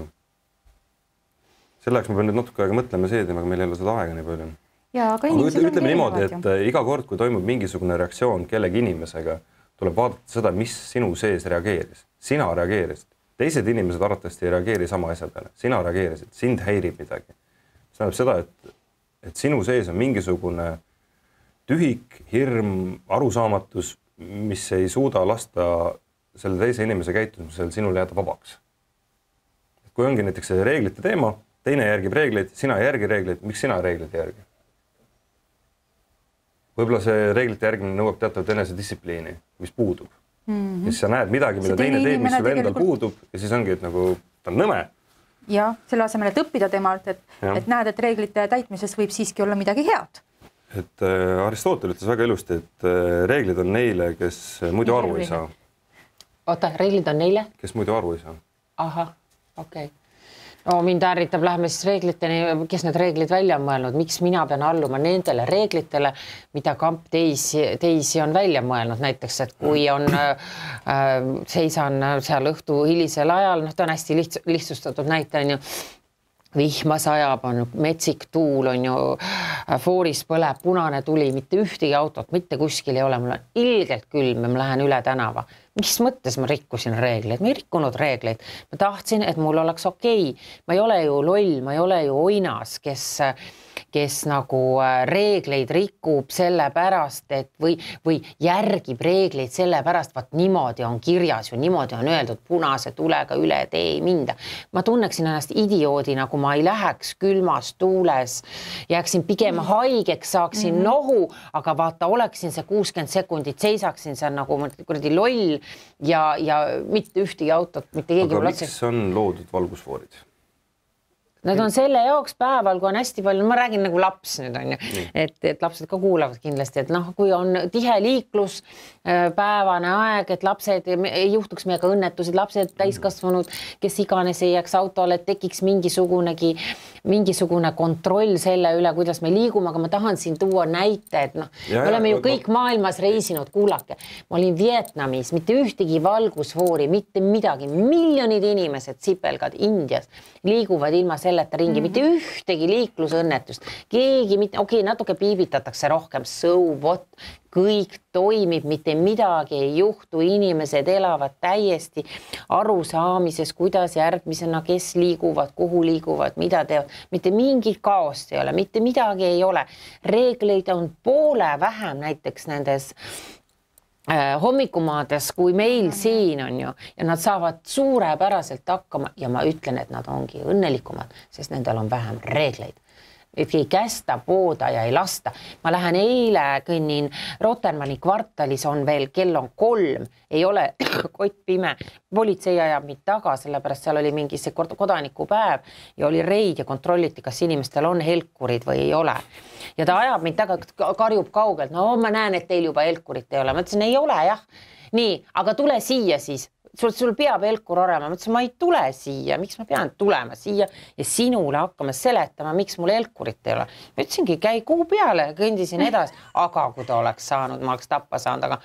selle jaoks ma pean nüüd natuke aega mõtlema see teema, aga meil ei ole seda aega nii palju. Aga ütleme niimoodi, et iga kord, kui toimub mingisugune reaktsioon kellegi inimesega, tuleb vaadata seda, mis sinu sees reageeris. Sina reageerisid. Teised inimesed arvatavasti ei reageeri sama asja peale. Sina reageerisid, sind häirib midagi. See tähendab seda, et sinu sees on mingisugune tühik, hirm, arusaamatus, mis ei suuda lasta selle teise inimese käitumisel sinule jääda vabaks. Kui ongi näiteks see reeglite teema, teine järgib reegleid, sina ei järgi reegleid, miks sina reegleid ei järgi? Võib-olla see reeglite järgimine nõuab teatavat enesedistsipliini, mis puudub. Ja siis sa näed midagi, mida teine teeb, mis sul endal puudub ja siis ongi, et nagu ta on nõme. Ja, selle asemel, et õppida temalt, et näed, et reeglite täitmises võib siiski olla midagi head. Et Aristotel ütles väga ilusti, et reeglid on neile, kes muidu aru ei saa. Oota, reeglid on neile? Kes muidu aru ei saa. Aha, okei. No mind ärritab, lähme siis reegliteni, kes need reeglid välja on mõelnud, miks mina pean alluma nendele reeglitele, mida kamp teisi on välja mõelnud. Näiteks, et kui on seisan seal õhtu hilisel ajal, ta on hästi lihtsustatud näite, on ju, vihma sajab, on metsik tuul, on ju, fooris põleb, punane tuli, mitte ühtegi autot, mitte kuskil ei ole, mul on ilgelt külm ja ma lähen üle tänava. Mis mõttes ma rikkusin reegleid? Ma ei rikkunud reegleid. Ma tahtsin, et mul oleks okei. Ma ei ole ju loll, ma ei ole ju oinas, kes nagu reegleid rikub selle pärast, et või järgib reegleid selle pärast, vaat niimoodi on kirjas ju, niimoodi on öeldud punase tulega üle tee ei minda. Ma tunneksin ennast idioodina, kui ma ei läheks külmas tuules, jääksin pigem haigeks, saaksin nohu, aga vaata, oleksin see 60 sekundit, seisaksin seal nagu kuradi loll ja mitte ühtegi autot, mitte keegi. Aga miks on loodud valgusfoorid? Nad on selle jaoks päeval, kui on hästi palju, ma räägin nagu laps nüüd on ju, et lapsed ka kuulavad kindlasti, et noh, kui on tihe liiklus, päevane aeg, et lapsed ei juhtuks meiega õnnetused, lapsed täiskasvanud, kes iganes ei jääks autole, et tekiks mingisugune kontroll selle üle, kuidas me liigume, aga ma tahan siin tuua näite, et noh, me oleme ju kõik maailmas reisinud, kuulake. Ma olin Vietnamis, mitte ühtegi valgusfoori, mitte midagi, miljonid inimesed, sipelgad Indias liiguvad ilma selleta ringi, mitte ühtegi liiklusõnnetust, keegi mitte, okei, natuke piibitatakse rohkem, so what, kõik toimib, mitte midagi ei juhtu, inimesed elavad täiesti arusaamises, kuidas järgmisena, kes liiguvad, kuhu liiguvad, mida teevad, mitte mingit kaost ei ole, mitte midagi ei ole. Reegleid on poole vähem näiteks nendes hommikumaades, kui meil siin on ju, ja nad saavad suurepäraselt hakkama ja ma ütlen, et nad ongi õnnelikumad, sest nendel on vähem reegleid. Et ei kästa pooda ja ei lasta. Ma lähen eile, kõnnin Rotermanni kvartalis on veel, kell on 3, ei ole kott pime. Politsei ajab mind taga, sellepärast seal oli mingi see kodanikupäev ja oli reid ja kontrolliti, kas inimestel on helkurid või ei ole. Ja ta ajab mind taga, karjub kaugelt, no ma näen, et teil juba helkurit ei ole. Ma ütlesin, ei ole jah. Nii, aga tule siia siis. Sul peab helkur olema, ma ütlesin, ma ei tule siia, miks ma pean tulema siia ja sinule hakkama seletama, miks mul helkurit ei ole. Ma ütlesingi, käi kuu peale, kõndisin edasi, aga kui ta oleks saanud, ma oleks tappa saanud, aga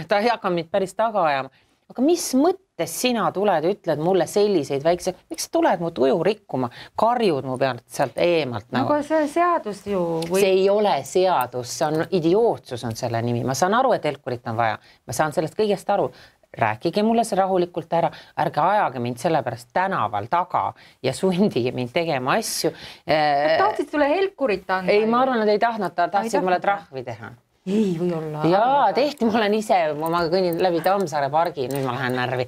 ta ei hakka mind päris taga ajama. Aga mis mõttes sina tuled ja ütled mulle selliseid väikse, miks sa tuled mu tuju rikkuma, karjud mu pealt sealt eemalt? Nagu see seadus ju... See ei ole seadus, see on idiootsus on selle nimi. Ma saan aru, et helkurit on vaja, ma saan sellest kõigest aru. Rääkige mulle see rahulikult ära, ärge ajage mind sellepärast tänaval taga ja sundige mind tegema asju. Tahtsid sulle helkurit anda? Ei, ma arvan, nad ei tahtnud, tahtsid mulle trahvi teha. Ei või olla. Jaa, tehti, ma olen ise, ma kõnnin läbi Tammsaare pargi, nüüd ma lähen närvi.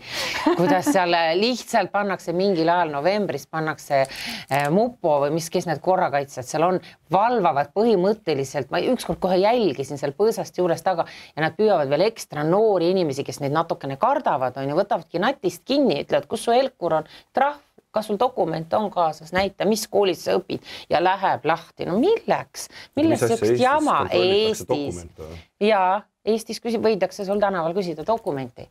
Kuidas seal lihtsalt pannakse mingil ajal novembris, pannakse mupo või kes need korrakaitsjad seal on, valvavad põhimõtteliselt, ma ükskord kohe jälgisin seal põõsast juures taga ja nad püüavad veel ekstra noori inimesi, kes neid natukene kardavad, on ja võtavadki natist kinni, ütlevad, kus su helkur on, trahv. Kas sul dokument on kaasas, näita, mis koolis sa õpid ja läheb lahti. No milleks? Millest sellist jama Eestis? Jaa, Eestis võidakse sul tänaval küsida dokumenti.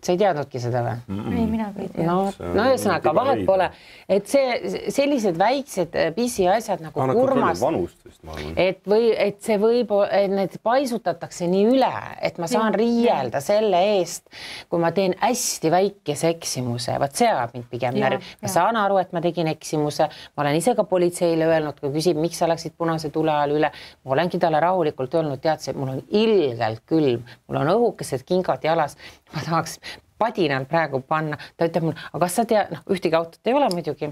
Sa ei teadnudki seda või? Ei, mina ei tea. No ühesõnaga, vahet pole. Et sellised väiksed pisi asjad nagu kurmast, et see võib, et need paisutatakse nii üle, et ma saan riielda selle eest, kui ma teen hästi väikese eksimuse. Vaat see ajab mind pigem närvi. Ma saan aru, et ma tegin eksimuse. Ma olen ise ka politseile öelnud, kui küsib, miks sa läksid punase tule ajal üle. Ma olengi talle rahulikult öelnud, teadse, mul on ilgelt külm, mul on õhukesed kingad jalas. Ma tahaks padinal praegu panna. Ta ütleb mulle, aga kas sa tead, ühtegi autot ei ole muidugi.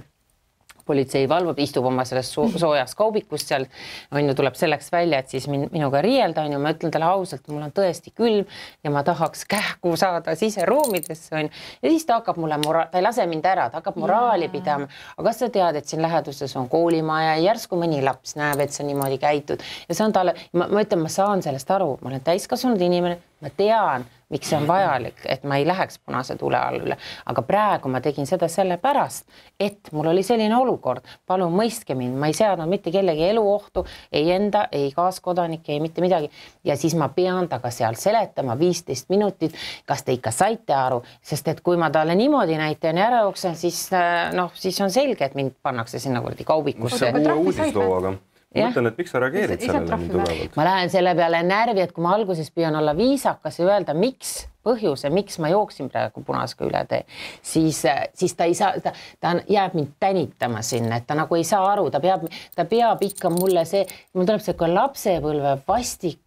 Politsei valvab, istub oma selles soojas kaubikus seal, on ju, tuleb selleks välja, et siis minuga riielda, on ju, ma ütlen talle ausalt, mul on tõesti külm ja ma tahaks kähku saada siseruumidesse, on ju. Ja siis ta hakkab mulle, ta ei lase mind ära, ta hakkab moraali pidama. Aga kas sa tead, et siin läheduses on koolimaja ja järsku mõni laps näeb, et sa niimoodi käitud. Ja see on talle, ma ütlen, ma saan sellest aru, ma olen täiskasvanud inimene, ma tean, miks see on vajalik, et ma ei läheks punase tule all üle. Aga praegu ma tegin seda sellepärast, et mul oli selline olukord. Palun mõistke mind, ma ei seadnud mitte kellegi eluohtu, ei enda, ei kaaskodanike, ei mitte midagi. Ja siis ma pean taga seal seletama 15 minutit, kas te ikka saite aru, sest et kui ma talle niimoodi näitan ja ära jooksen, siis on selge, et mind pannakse sinna kurdi kaubikusse. See on uue uudislooga. Mõtlen, et miks sa reageerid sellele nii tugevalt? Ma lähen selle peale närvi, et kui ma alguses püüan olla viisakas ja öelda, miks põhjuse, miks ma jooksin praegu punasega üle tee, siis ta ei saa, ta jääb mind tänitama sinna, et ta nagu ei saa aru, ta peab ikka mulle mul tuleb see lapsepõlve vastik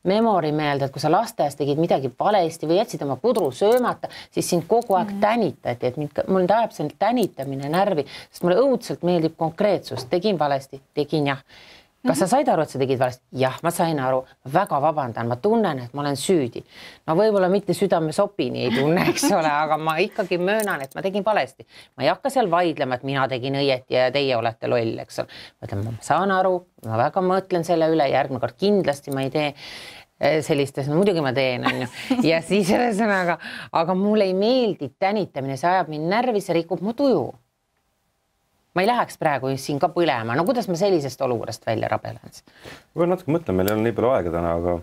memori meelde, et kui sa lasteaias tegid midagi valesti või jätsid oma pudru söömata, siis sind kogu aeg tänitati, et mul tajab see tänitamine närvi, sest mulle õudselt meeldib konkreetsus, tegin valesti, tegin jah. Kas sa said aru, et sa tegid valesti? Jah, ma sain aru, väga vabandan, ma tunnen, et ma olen süüdi. No võib-olla mitte südame sopini ei tunne, eks ole, aga ma ikkagi möönan, et ma tegin valesti. Ma ei hakka seal vaidlema, et mina tegin õieti ja teie olete loll, eks ole. Ma saan aru, ma väga mõtlen selle üle, järgmine kord kindlasti ma ei tee sellistes, no muidugi ma teen, on ju. Ja siis ühesõnaga, aga mulle ei meeldi tänitamine, see ajab mind närvi, see rikub mu tuju. ma ei läheks praegu siin ka põlema. No kuidas ma sellisest olukorrast välja rabelen? Ma natuke mõtlen, meil ei ole nii palju aega täna, aga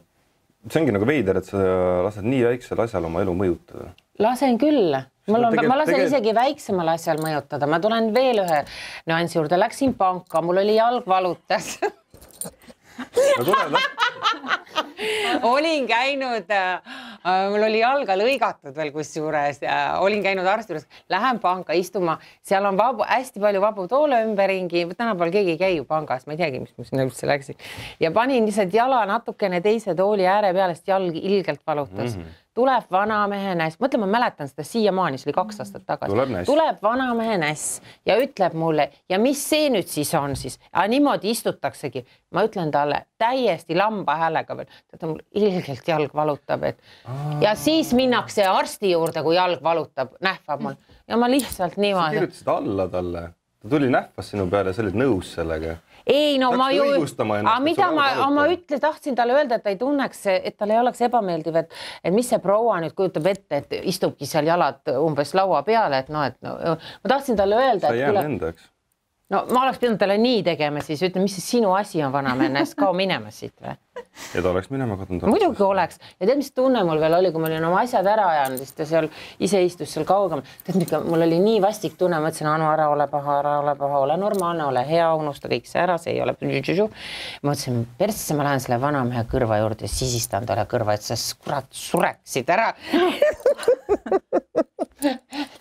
see ongi nagu veider, et sa lased nii väiksel asjal oma elu mõjutada. Lasen küll. Ma lasen isegi väiksemal asjal mõjutada. Ma tulen veel ühe nüansi juurde. Läksin panka, mul oli jalg valutas. Olin käinud, mul oli jalga lõigatud veel kusjuures, olin käinud arsti juures, lähen panka istuma, seal on hästi palju vabu toole ümberringi, tänapäeval keegi ei käi ju pangas, ma ei teagi, mis ma sinna üldse läksin. Ja panin lihtsalt jala natukene teise tooli ääre pealest, jalg ilgelt valutas. Tuleb vanamehe näss, mõtle, ma mäletan seda siiamaani, see oli 2 aastat tagasi. Tuleb vanamehe näss ja ütleb mulle, ja mis see nüüd siis on siis? Niimoodi istutaksegi. Ma ütlen talle täiesti lamba häälega veel, ta mul ilgelt jalg valutab. Ja siis minnakse arsti juurde, kui jalg valutab, nähvab mul. Ja ma lihtsalt niimoodi. Sa kirjutasid alla talle. Ta tuli nähvas sinu peale, sa olid nõus sellega. Ei, no ma ju, mida ma tahtsin talle öelda, et ta ei tunneks, et tal ei oleks ebameeldiv, et mis see proua nüüd kujutab ette, et istubki seal jalad umbes laua peale, et ma tahtsin talle öelda, sa jäänud endaks. No ma oleks pidanud talle nii tegema, siis ütlen, mis see sinu asi on vanamees, kao minema siit või? Ja ta oleks minema kadunud. Muidugi oleks. Ja tead, mis tunne mul veel oli, kui ma olin oma asjad ära ajanud, siis ta seal ise istus seal kaugem. Tead, mul oli nii vastik tunne, ma ütlesin, Anu, ära ole paha, ole normaalne, ole hea, unusta kõik see ära, see ei ole. Ma ütlesin, persse, ma lähen selle vanamehe kõrva juurde ja sisistan talle kõrva, et sa kurat sureksid ära.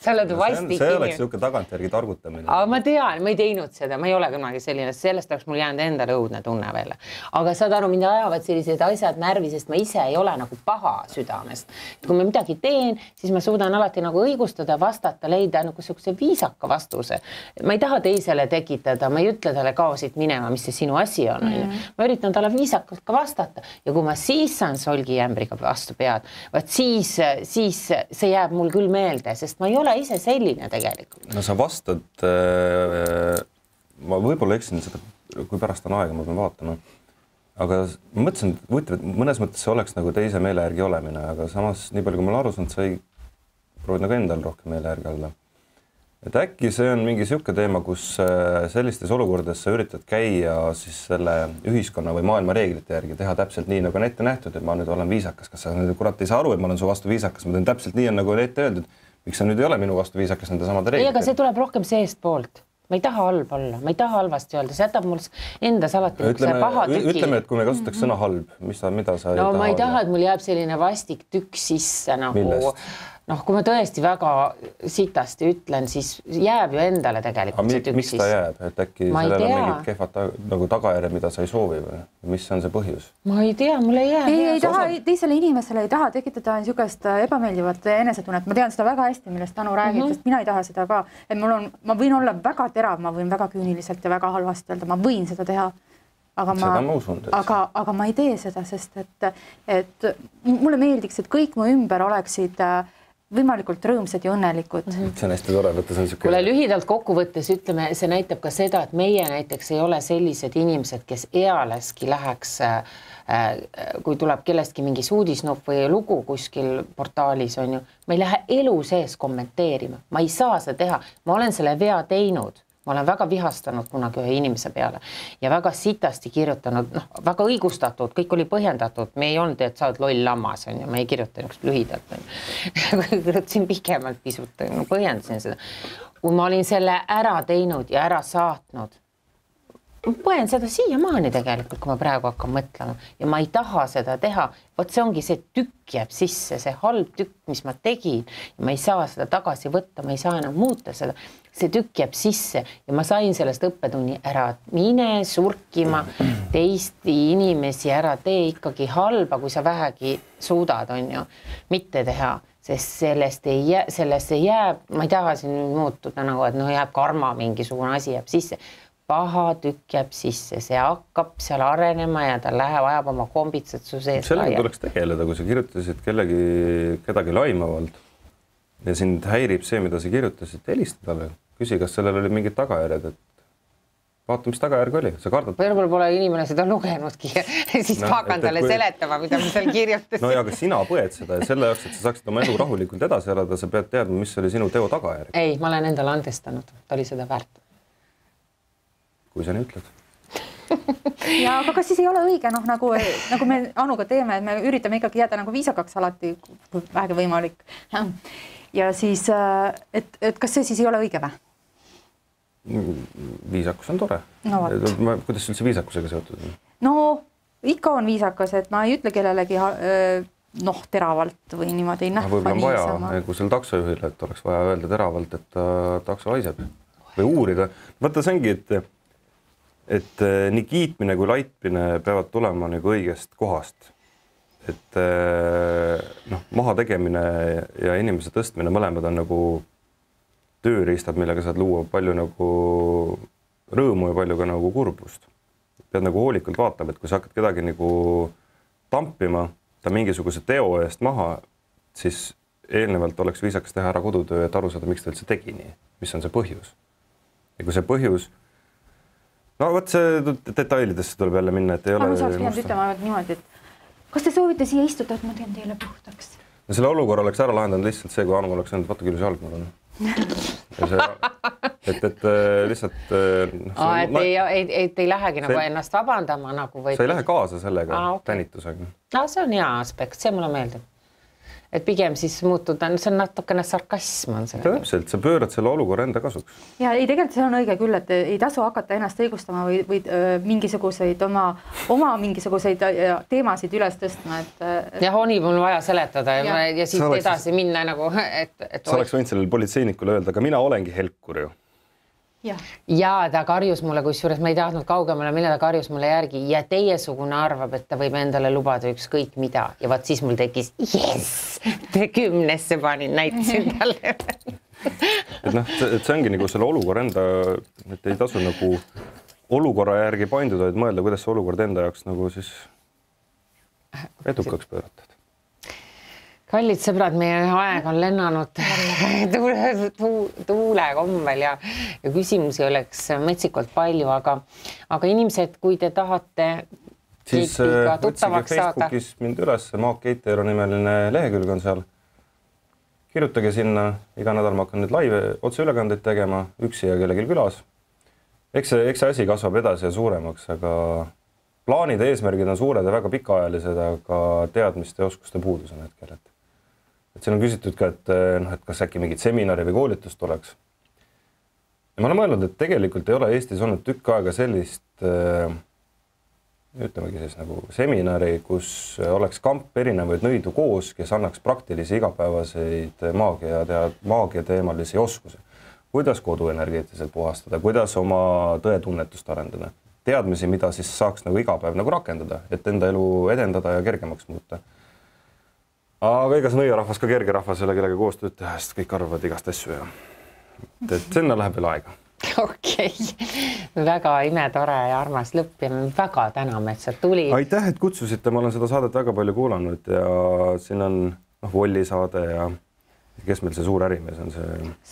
See oleks siuke tagantjärgi targutamine. Aga ma tean, ma ei teinud seda, ma ei ole kunagi selline, sellest oleks mul jäänud endale õudne tunne veel. Aga saad aru, mind ajavad sellised asjad närvi, sest ma ise ei ole nagu paha südamest. Kui ma midagi teen, siis ma suudan alati nagu õigustada, vastata, leida nagu sellise viisaka vastuse. Ma ei taha teisele tekitada, ma ei ütle talle kao siit minema, mis see sinu asi on. Ma üritan talle viisakalt ka vastata. Ja kui ma siis saan solgijämbriga vastu pead, siis see jääb mul küll meelde, sest ma ei ole ise selline tegelikult. No sa vastad, ma võib-olla eksin seda, kui pärast on aega, ma pean vaatama. Aga ma mõtlesin, et mõnes mõttes see oleks nagu teise meele järgi olemine, aga samas nii palju, kui ma olen aru saanud, sa ei proovid nagu endal rohkem meele järgi olla. Et äkki see on mingi siuke teema, kus sellistes olukordades sa üritad käia siis selle ühiskonna või maailma reeglite järgi, teha täpselt nii, nagu on ette nähtud, et ma nüüd olen viisakas. Kas sa nüüd kurat ei saa aru, et ma olen su vastu viisakas, ma teen täpselt nii, nagu on ette öeldud. Miks sa nüüd ei ole minu vastu viisakas nende samade reeglite? Ei, aga see tuleb rohkem seest poolt. Ma ei taha halb olla, ma ei taha halvasti öelda, see jätab mul endas alati paha tüki. Ütleme, et kui me kasutaks sõna halb, mida sa ei taha? No ma ei taha, et mul jääb selline vastik tükk sisse nagu... Millest? Kui ma tõesti väga sitasti ütlen, siis jääb ju endale tegelikult see tükk sisse. Miks ta jääb? Et äkki sellel on mingid kehvad nagu tagajärjed, mida sa ei soovi või? Mis on see põhjus? Ma ei tea, mul ei jää. Ei taha, teisele inimesele ei taha tekitada niisugust ebameeldivat enesetunnet. Ma tean seda väga hästi, millest Anu räägib, sest mina ei taha seda ka. Et ma võin olla väga terav, ma võin väga küüniliselt ja väga halvasti öelda, ma võin seda teha. Aga ma ei tee seda, sest et mulle meeldiks, et kõik mu ümber oleksid võimalikult rõõmsad ja õnnelikud. See on hästi tore, võttes on siuke... Kuule, lühidalt kokkuvõttes ütleme, see näitab ka seda, et meie näiteks ei ole sellised inimesed, kes ealeski läheks, kui tuleb kellestki mingi uudisnupp või lugu kuskil portaalis on ju, ma ei lähe elu sees kommenteerima, ma ei saa seda teha, ma olen selle vea teinud. Ma olen väga vihastanud kunagi ühe inimese peale ja väga sitasti kirjutanud, väga õigustatud, kõik oli põhjendatud. Me ei olnud, et sa oled loll lammas, on ju, ma ei kirjuta niisugust lühidalt. Kirjutasin pikemalt pisut, põhjendasin seda. Kui ma olin selle ära teinud ja ära saatnud, ma põen seda siiamaani tegelikult, kui ma praegu hakkan mõtlema ja ma ei taha seda teha. Vot see ongi see tükk jääb sisse, see halb tükk, mis ma tegin ja ma ei saa seda tagasi võtta, ma ei saa enam muuta seda. See tükk jääb sisse ja ma sain sellest õppetunni ära, mine surkima teist inimesi ära, tee ikkagi halba, kui sa vähegi suudad, on ju, mitte teha. Sest sellest ei jääb, ma ei taha siin muutuda nagu, et jääb karma mingisugune asi jääb sisse. Paha tükk jääb sisse, see hakkab seal arenema ja ta ajab oma kombitsed su sees. Sellega tuleks tegeleda, kui sa kirjutasid kedagi laimavalt ja sind häirib see, mida sa kirjutasid, helista talle. Küsi, kas sellel oli mingid tagajärjed, et vaata, mis tagajärg oli. Sa kardad... Võib-olla pole inimene seda lugenudki ja siis hakkan talle seletama, mida ma seal kirjutasin. No ja aga sina põed seda ja selle jaoks, et sa saaksid oma elu rahulikult edasi elada, sa pead teadma, mis oli sinu teo tagajärg. Ei, ma olen endale andestanud, ta oli seda väärt. kui sa nii ütled. Ja aga kas siis ei ole õige, noh, nagu me Anuga teeme, et me üritame ikkagi jääda nagu viisakaks alati, kui vähegi võimalik. Ja siis, et kas see siis ei ole õige või? Viisakus on tore. No, kuidas üldse viisakusega seotud? No ikka on viisakas, et ma ei ütle kellelegi teravalt või niimoodi ei nähva. Võib-olla on vaja, kui seal taksojuhile, et oleks vaja öelda teravalt, et takso haiseb või uurida. Vaata, see ongi, et nii kiitmine kui laitmine peavad tulema nagu õigest kohast. Et maha tegemine ja inimese tõstmine mõlemad on nagu tööriistad, millega saad luua palju nagu rõõmu ja palju ka nagu kurbust. Pead nagu hoolikalt vaatama, et kui sa hakkad kedagi nagu tampima ta mingisuguse teo eest maha, siis eelnevalt oleks viisakas teha ära kodutöö, et aru saada, miks ta üldse tegi nii, mis on see põhjus. Ja kui see põhjus, võt see detailidesse tuleb jälle minna, et ei ole... Ma saaks pidanud ütlema niimoodi, et kas te soovite siia istuda, et ma teen teile puhtaks? No selle olukorra oleks ära lahendanud lihtsalt see, kui Anu oleks öelnud, vaata küll see jalg mul on. Et lihtsalt... Et ei lähegi nagu ennast vabandama nagu või... Sa ei lähe kaasa sellega tänitusega. See on hea aspekt, see mulle meeldib. Et pigem siis muutuda, see on natukene sarkasm on see. Täpselt, sa pöörad selle olukorra enda kasuks. Ja ei, tegelikult see on õige küll, et ei tasu hakata ennast õigustama või mingisuguseid oma mingisuguseid teemasid üles tõstma. Ja oli mul vaja seletada ja siit edasi minna nagu... Sa oleks võinud sellele politseinikule öelda, aga mina olengi helkur ju. Ja ta karjus mulle, kusjuures ma ei tahtnud kaugemale, mille ta karjus mulle järgi ja teiesugune arvab, et ta võib endale lubada ükskõik mida ja vaat siis mul tekkis te 10-sse panin, näitasin talle. Et see ongi nagu selle olukorra enda, et ei tasu nagu olukorra järgi painduda, et mõelda, kuidas see olukord enda jaoks nagu siis edukaks pööratud. Kallid sõbrad, meie aeg on lennanud tuule kombel ja küsimusi oleks metsikult palju, aga inimesed, kui te tahate siis otsige Facebookis mind üles, Maak Keiteero nimeline lehekülg on seal. Kirjutage sinna, iga nädal ma hakkan nüüd live otseülekandeid tegema, üksi ja kellelgi külas. Eks see asi kasvab edasi ja suuremaks, aga plaanid ja eesmärgid on suured ja väga pikaajalised, aga teadmiste ja oskuste puudus on hetkel. Et siin on küsitud ka, et kas äkki mingit seminari või koolitust oleks. Ja ma olen mõelnud, et tegelikult ei ole Eestis olnud tükk aega sellist, ütlemegi siis nagu seminari, kus oleks kamp erinevaid nõidu koos, kes annaks praktilisi igapäevaseid maagia teemalisi oskusi. Kuidas koduenergeetiliselt puhastada, kuidas oma tõetunnetust arendada. Teadmisi, mida siis saaks nagu igapäev nagu rakendada, et enda elu edendada ja kergemaks muuta. Aga ega see nõiarahvas ka kerge rahvas ei ole kellega koostööd teha, sest kõik arvavad igast asju ja sinna läheb veel aega. Okei. Väga imetore ja armas lõpp ja me väga täname, et sa tuli. Aitäh, et kutsusite. Ma olen seda saadet väga palju kuulanud ja siin on Volli saade ja kes meil see suur ärimees on see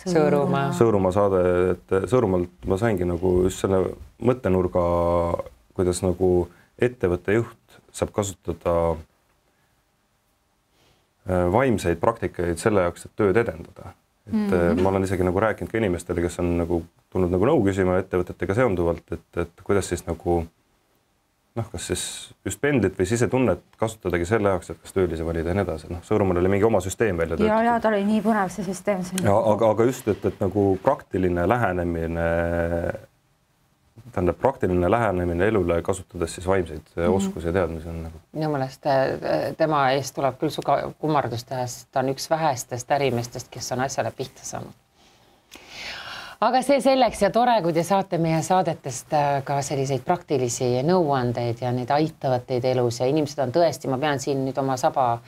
Sõõrumaa saade, et Sõõrumaalt ma saingi nagu just selle mõttenurga, kuidas nagu ettevõtte juht saab kasutada vaimseid praktikaid selle jaoks, et tööd edendada. Ma olen isegi nagu rääkinud ka inimestele, kes on nagu tulnud nagu nõu küsima ettevõtetega seonduvalt, et kuidas siis nagu kas siis just pendlit või sisetunnet kasutadagi selle jaoks, et kas töölise valida ja nii edasi. Sõõrumaal oli mingi oma süsteem välja töötatud. Ja ta oli nii põnev see süsteem. Aga just, et nagu praktiline lähenemine elule, kasutades siis vaimseid oskusi ja teadmisi on nagu. Minu mõelest tema eest tuleb küll suga kummardust teha, sest ta on üks vähestest ärimestest, kes on asjale pihta saanud. Aga see selleks ja tore, kui te saate meie saadetest ka selliseid praktilisi nõuandeid ja neid aitavad teid elus ja inimesed on tõesti, ma pean siin nüüd oma saba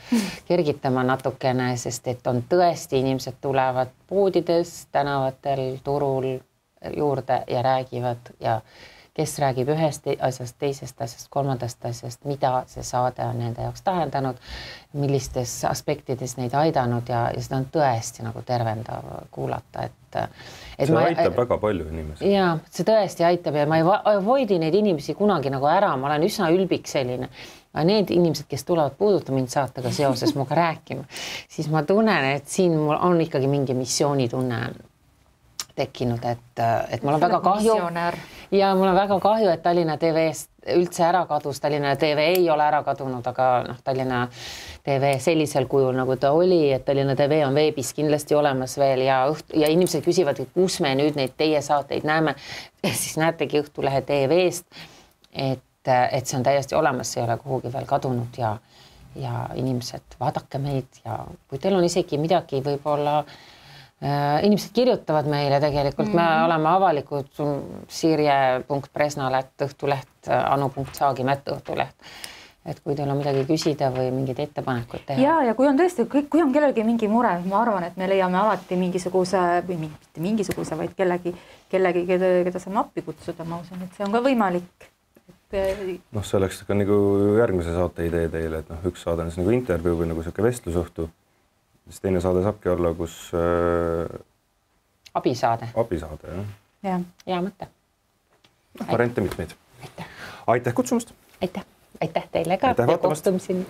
kergitama natukene, sest et on tõesti inimesed tulevad poodides, tänavatel, turul juurde ja räägivad ja kes räägib ühest asjast, teisest asjast, kolmandast asjast, mida see saade on nende jaoks tähendanud, millistes aspektides neid aidanud ja seda on tõesti nagu tervendav kuulata, see aitab väga palju inimesi. Ja see tõesti aitab ja ma ei avoidi neid inimesi kunagi nagu ära, ma olen üsna ülbik selline. Aga need inimesed, kes tulevad puuduta mind saatega seoses muga rääkima, siis ma tunnen, et siin mul on ikkagi mingi missioonitunne tekkinud, et mul on väga kahju. ja mul on väga kahju, et Tallinna TV-st üldse ära kadus. Tallinna TV ei ole ära kadunud, aga Tallinna TV sellisel kujul, nagu ta oli, et Tallinna TV on veebis kindlasti olemas veel ja inimesed küsivad, et kus me nüüd neid teie saateid näeme. Siis näetegi Õhtulehe TV-st, et see on täiesti olemas, see ei ole kuhugi veel kadunud ja inimesed, vaadake meid ja kui teil on isegi midagi, võib-olla inimesed kirjutavad meile tegelikult, me oleme avalikud sirje.presnal@õhtuleht, anu.saagimätt@õhtuleht. Et kui teil on midagi küsida või mingid ettepanekud teha. Ja kui on tõesti, kui on kellelgi mingi mure, ma arvan, et me leiame alati mingisuguse või mitte mingisuguse, vaid kellegi, keda saame appi kutsuda, ma usun, et see on ka võimalik. Noh, see oleks ka nagu järgmise saate idee teile, et üks saade on nagu intervjuu või nagu selline vestlusõhtu. Siis teine saade saabki olla, kus abisaade, jah. Hea mõte. Variante mitmeid. Aitäh kutsumast. Aitäh teile ka ja kohtumiseni.